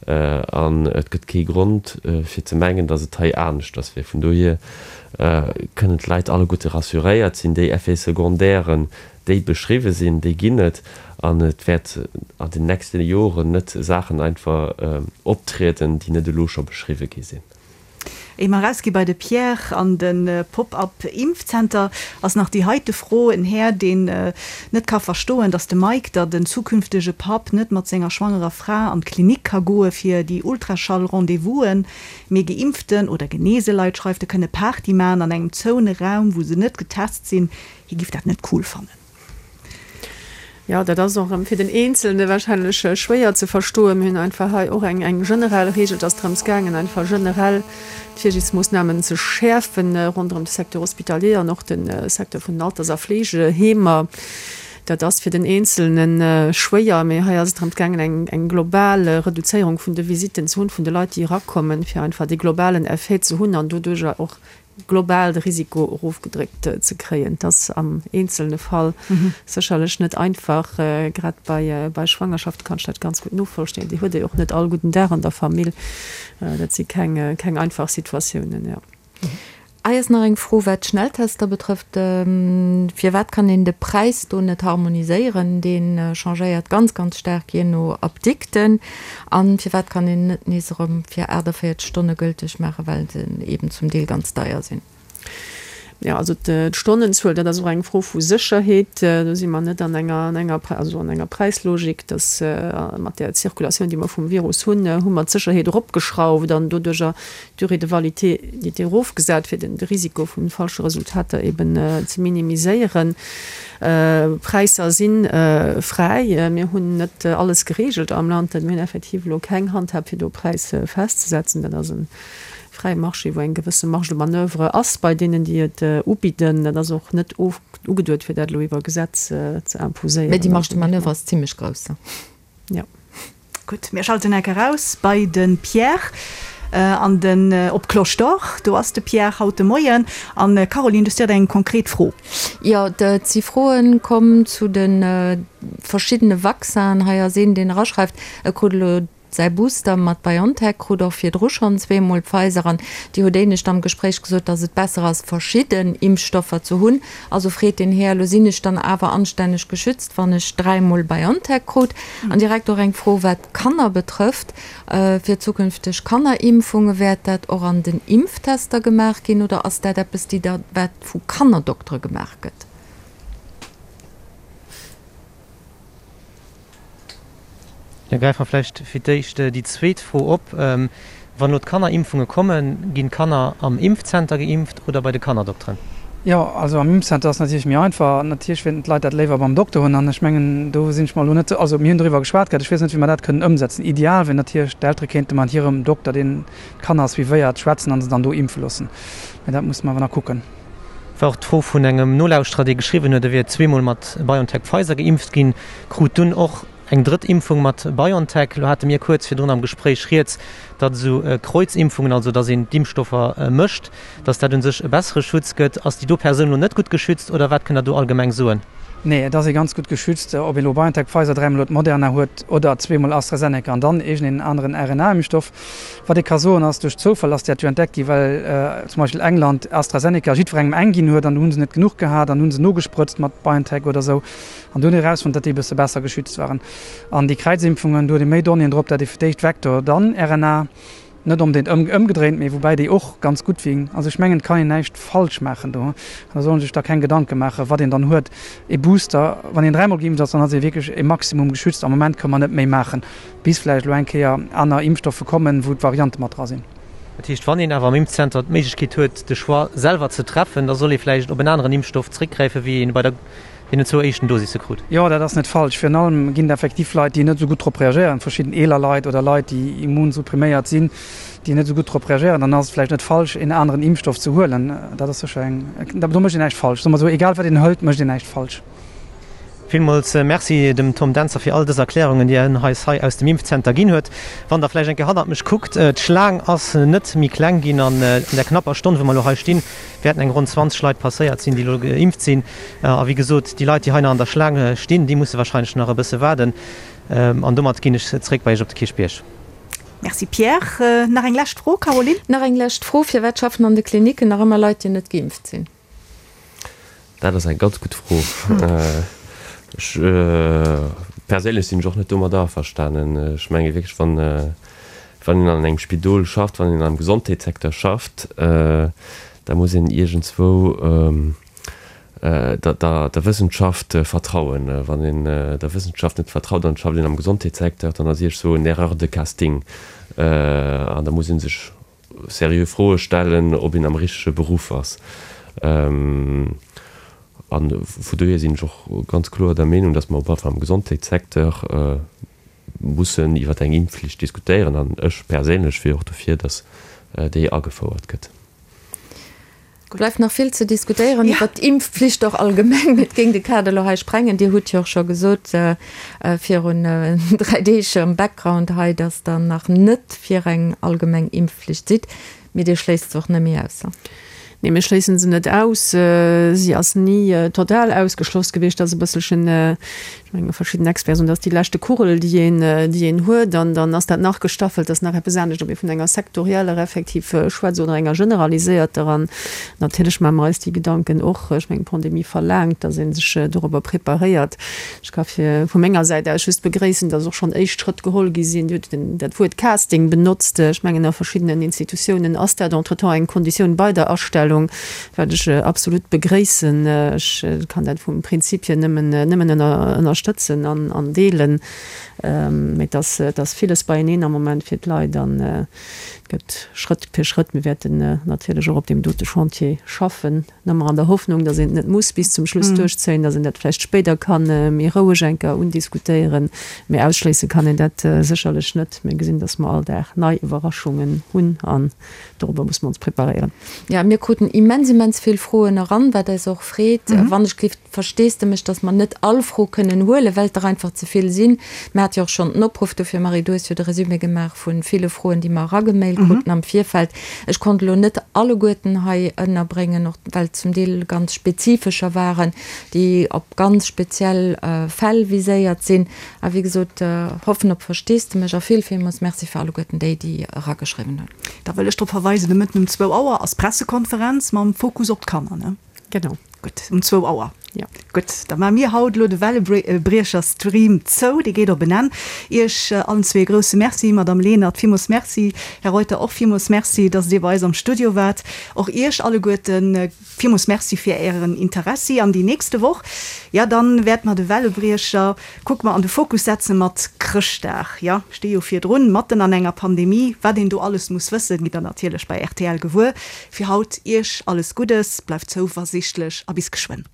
An et gëtt kee Grond, fir ze mengen, datt et hei aneschters wier. Vun dohier kënnen d'Leit alleguerte rassuréiert sinn, Déi Effets secondairen, déi beschriwwe sinn, déi ginn et. An et wäert an den nächste Joren net Saachen einfach optrieden, déi net elo scho beschriwwe gi sinn. Éier mer erausgi bei de Pierre an de Pop-up Impfzenter, ass nach déi heite Fro, En Här, deen net ka verstoen, datt de Mike, der den zukünftege Papp, net mat senger schwangerer Fra an d'Klinik ka goe fir déi Ultraschall-Rendez-vousen, mee geimpften oder geneese Leit, schreift e, kënne Party maachen an engem zoune Raum, wou se net getest sinn, hie giff dat net cool fannen. Jo, dat ass och erëm fir den Eenzelne wahrscheinlech schwéier ze verstoen. Mir hunn einfach hei och eng eng generell Regel. Et ass drëms gaangen, einfach generell d'Virsiichtsmoossnamen ze schäerfen ronderëm de Secteur hospitalier an och de Secteur vun den Alters a Fleegeheemer. Dat ass fir den Eenzelne schwéier, mee hei ass et drëms gaangen, eng eng global Reduzéierung vun de Visitten ze hunn, vun de Leit, déi erakommen, fir einfach dee globalen Effet ze hunn an doduerjer och global de Risiko erofgedréckt ze kréien. Et ass am eenzelne Fall sécherlech net einfach. Grad bei bei Schwangerschafte kann ech dat ganz gutt novollstehen. Déi huet ee och net all gudden Dag an der Famill. Dat si keng keng einfach Situatiounen, jo. Hei ass nach eng Fro, wat d'Schnelltester betrëfft. Firwat kann een de Präis do net harmoniséieren? Dee changéiert ganz, ganz staark jee no Apdikten. An firwat kann een net nees erëm fir 48 Stonne gülteg maachen, well se eben zum Deel ganz deier sinn? Jo, also d'Stonnenzuel, dat ass och eng Fro vu Sécherheet. Do si mer net an enger, an enger, also an enger Präislogik, dass mat där Zirkulatioun, déi mer vum Virus hunn, hu mer d'Sécherheet eropgeschrauft an doduerjer d'Durée de validité erofgesat, fir de Risiko vu falsche Resultater eben ze minimiséieren. Präisser si fräi. Mir hunn net alles gereegelt am Land. Mir hunn effektiv elo keng Handhab, fir do Präis festzesetzen. Dat ass e fräie Marché, wou eng gewësse Marge de manoeuvre ass bei deenen, déi et ubidden. Dat ass och net ugeduet, fir dat elo iwwer Gesetz ze imposéieren. Mä déi Marge de manoeuvre ass zimlech grouss. Jo. Gutt, mir schalten enk eraus bei de Pierre an den op d'Cloche d'Or. Do ass de Pierre haut de Moien. An Caroline, du hues direkt eng konkret Fro. Jo, et si Froen komm zu de verschiddene Vaccinen. Hei ass een, deen eraschreift, e krut elo säi Booster mat BioNTech, krut och virdru schonn zweemol Pfizer an Dir hutt éinescht am Gespréich gesot, datt et besser ass, verschidden Impfstoffer ze hunn. Also freet den Här, elo sinn ech dann awer anstänneg geschützt, wann ech dräimol BioNTech krut? An direkt och eng Fro, wat d'Kanner betrëfft, Fir zukünfteg Kannerimpfunge, wäert dat och an den Impftester gemaach ginn oder ass dat eppes, déi da, wat vu Kannerdoktere gemaach gëtt? Da gräife mer vläicht fir d'éischt déi zweet Fro op. Wann elo d'Kannerimpfunge kommen, ginn d'Kanner am Impfzenter geimpft oder bei de Kannerdokteren? Jo, also am Impfzenter ass natierlech méi einfach. Natierlech wéilten d'Leit dat léiwer beim Dokter hunn. An ech mengen, do sinn ech mer elo net, also mir hunn doriwwer geschwat gehat, ech weess net, wéi mer dat kënnen ëmsetzen. Ideal wier natierlech, d'Eltere kéinte mat hirem Dokter, deen d'Kanner suivéiert, schwätzen a se dann do impfe loossen. Mä dat musse mer awer nach kucken. War och d'Fro vun engem Nolauschterer, dee geschriwwen huet, e wier zweemol mat BioNTech-Pfizer geimpft ginn, krut dunn och eng drëtt Impfung mat BioNTech. Elo hate mir kuerz virdrun am Gespréich rieds, datt esou Kreuzimpfungen, also datt een d'Impfstoffer mëscht, datt dat u sech e bessere Schutz gëtt. Ass déi do Persoun elo net gutt geschützt oder wat kënnt Der do allgemeng soen? Nee, et ass ee ganz gutt geschützt, ob een elo BioNTech, Pfizer, dräimol huet, Moderna huet oder zweemol AstraZeneca an dann iergendeen aneren RNA-Impfstoff. Wat ee ka soen ass, duerch Zoufall ass dat jo entdeckt gi well zum Beispill England AstraZeneca jiddwerengem eng ginn huet an du hu se net genuch gehat an hu se nogesprëtzt mat BioNTech oder esou an du hunn erausfonnt, datt déi e bësse besser geschützt waren. An déi Kräizimpfungen, do huet ee méi Donnéeën drop, dat ee fir d'éischt Vektor, dann RNA, net onbedéngt ëmgedréint, mee woubäi déi och ganz gutt wien. Also ech mengen, et kann een näischt falsch maachen do. Da soll een sech da keng Gedanke maachen, wat een dann huet. Ee Booster, wann een dräimol geimpft ass, dann ass ee wierklech e Maximum geschützt. Am Moment kënne mer net méi maachen. Bis vläicht elo eng Kéier aner Impfstoffe kommen, wou d'Variante mat dra sinn. Dat heescht, wann een awer am Impfzenter d'Méiglechkeet huet, de Choix selwer ze treffen, da soll ee vläicht op en aneren Impfstoff zréckgräifen, wéi een bei der deenen zwou éischten Dosisse krut. Jo, dat ass net falsch. Virun allem ginn et effektiv Leit, déi net esou gutt drop reagéieren, verschidden eeler Leit oder Leit, déi immunsuppriméiert sinn, déi net esou gutt drop reagéieren. Dann ass et vläicht net falsch, een aneren Impfstoff ze huelen. Dat ass sécher eng, do mécht een näischt falsch. Soe mer esou, egal wat een hëlt, mécht een näischt falsch. Villmools Merci dem Tom Dentzer fir all dës Erklärungen, déi en eis hei aus dem Impfzenter ginn huet. Wann der vläicht eng Kéier hannert mech kuckt, d'Schlaang ass net méi kleng ginn an der knapper Stonn, wou mer elo hei stinn, wäerten eng ronn 20 Leit passéiert sinn, déi elo geimpft sinn. A wéi gesot, déi Leit, déi hei nach an der Schlaang stinn, déi musse warscheinlech nach e bësse waarden. An domat ginn ech zréck bei Iech op de Kierchbierg. Merci Pierre. Nach eng lescht Fro, Caroline? Nach eng lescht Fro, Firwat schaffen an de Klinicken nach ëmmer Leit, déi net geimpft sinn? Dat ass eng ganz gutt Fro. Ech perséinlech sinn ech och net domadder averstanen. Ech menge wierklech, wann wann een an engem Spidol schafft, wann een am Gesondheetssecteur schafft, da muss een iergendswou der der Wëssenschaft vertrauen. Wann een der Wëssenschaft net vertraut an et schafft een am Gesondheetssecteur, dann ass iergendswou en Erreur de casting an da muss ee sech seriö Froe stellen, ob een am richtege Beruff ass. A vu dohier sinn ech och ganz kloer der Meenung, datt mer op alle Fall am Gesondheetssecteur mussen iwwer eng Impfflicht diskutéieren. An ech perséinlech wier och dofir, datt déi agefouert gëtt. Bleift nach vill ze diskutéieren iwwert d'Impfflicht och allgemeng. Mee et géing de Kader elo hei sprengen. Dir hutt jo och scho gesot virun 3 Deeg am Background hei, datt Der nach net fir eng allgemeng Impfflicht sidd. Mee Dir schléisst se och net méi aus? Nee, mir schléissen se net aus. Si ass ni total ausgeschloss gewiescht. Dat ass e bësselchen, ech menge verschidden Experten soen, dat ass déi leschte Kugel, déi een, déi een huet. An dann ass dat nach gestaffelt, dat ass nach eppes anescht, ob ee vun enger sektorieller effektiv schwätzt oder enger generaliséierter. An natierlech maache mer eis déi Gedanken och. Ech mengen, d'Pandemie verlaangt, datt ee sech dorobber preparéiert. Ech ka fir vu menger Säit aus just begréissen, dass och schonn éischt Schrëtt geholl gi sinn. Dir hutt dat Wuert Casting benotzt. Ech mengen, a verschiddenen Institutiounen ass dat entretemps eng Konditioun bei der Astellung, wat ech absolut begréissen. Ech kann dat vum Prinzip hier nëmmen, nëmmen ënnerstëtzen an deelen. Mee et ass, et ass villes beieneen am Moment fir d'Leit an et gëtt Schrëtt fir Schrëtt. Mir wäerten natierlech och op deem dote Chantier schaffen. Nëmmer an der Hoffnung, datt een et net muss bis zum Schluss duerchzéien, datt een dat vläicht spéider ka méi roueg eng Kéier undiskutéieren. Mee ausschléisse kann een dat sécherlech net. Mir gesinn, datt mer all Dag nei Iwwerraschungen hunn an dorobber musse mer ons preparéieren. Jo, mir kruten immens, immens vill Froen eran, wat eis och freet. Wann ech gelift Versteesdemech, dass mer net all Fro kënnen huelen, well et der einfach ze vill sinn. Mir hate jo och schonn den Opruff dofir, Marie, du hues jo de Résumé gemaach vu ville Froen, déi mer eragemailt kruten am Virfeld. Ech konnt elo net alleguerten hei ënnerbréngen, och well et zum Deel ganz spezifescher waren, déi op ganz speziell Fäll viséiert sinn. A wéi gesot, hoffen op Versteesdemech a vill, villmools Merci fir alleguerten déi, déi erageschriwwen hunn. Da wëll ech drop verweisen, de Mëtten um zwou Auer ass d'Pressekonferenz mam Fokus op d'Kanner, ne? Genau. Gutt, um zwou Auer. Jo. Gutt, da maache mir haut elo de Wellebriecher-Stream zou. Dee geet op en Enn. Iech allen zwee e grousse Merci, Madamm Lenert, villmools Merci, Här Reuter, och villmools Merci, dass Dir bei eis am Studio waart. Och Iech alleguerte villmools Merci fir Ären Interessi. An déi nächste Woch, ja, dann wäerte mer de Wellebriecher, kucke mer, an de Fokus setze mat Chrëschtdag. Jo, sti jo virdrun, matten an enger Pandemie. Wat een do alles muss wëssen, gitt Der natierlech bei rtl gewuer. Fir haut Iech alles Guddes, bleift zouversichtlech a bis geschwënn.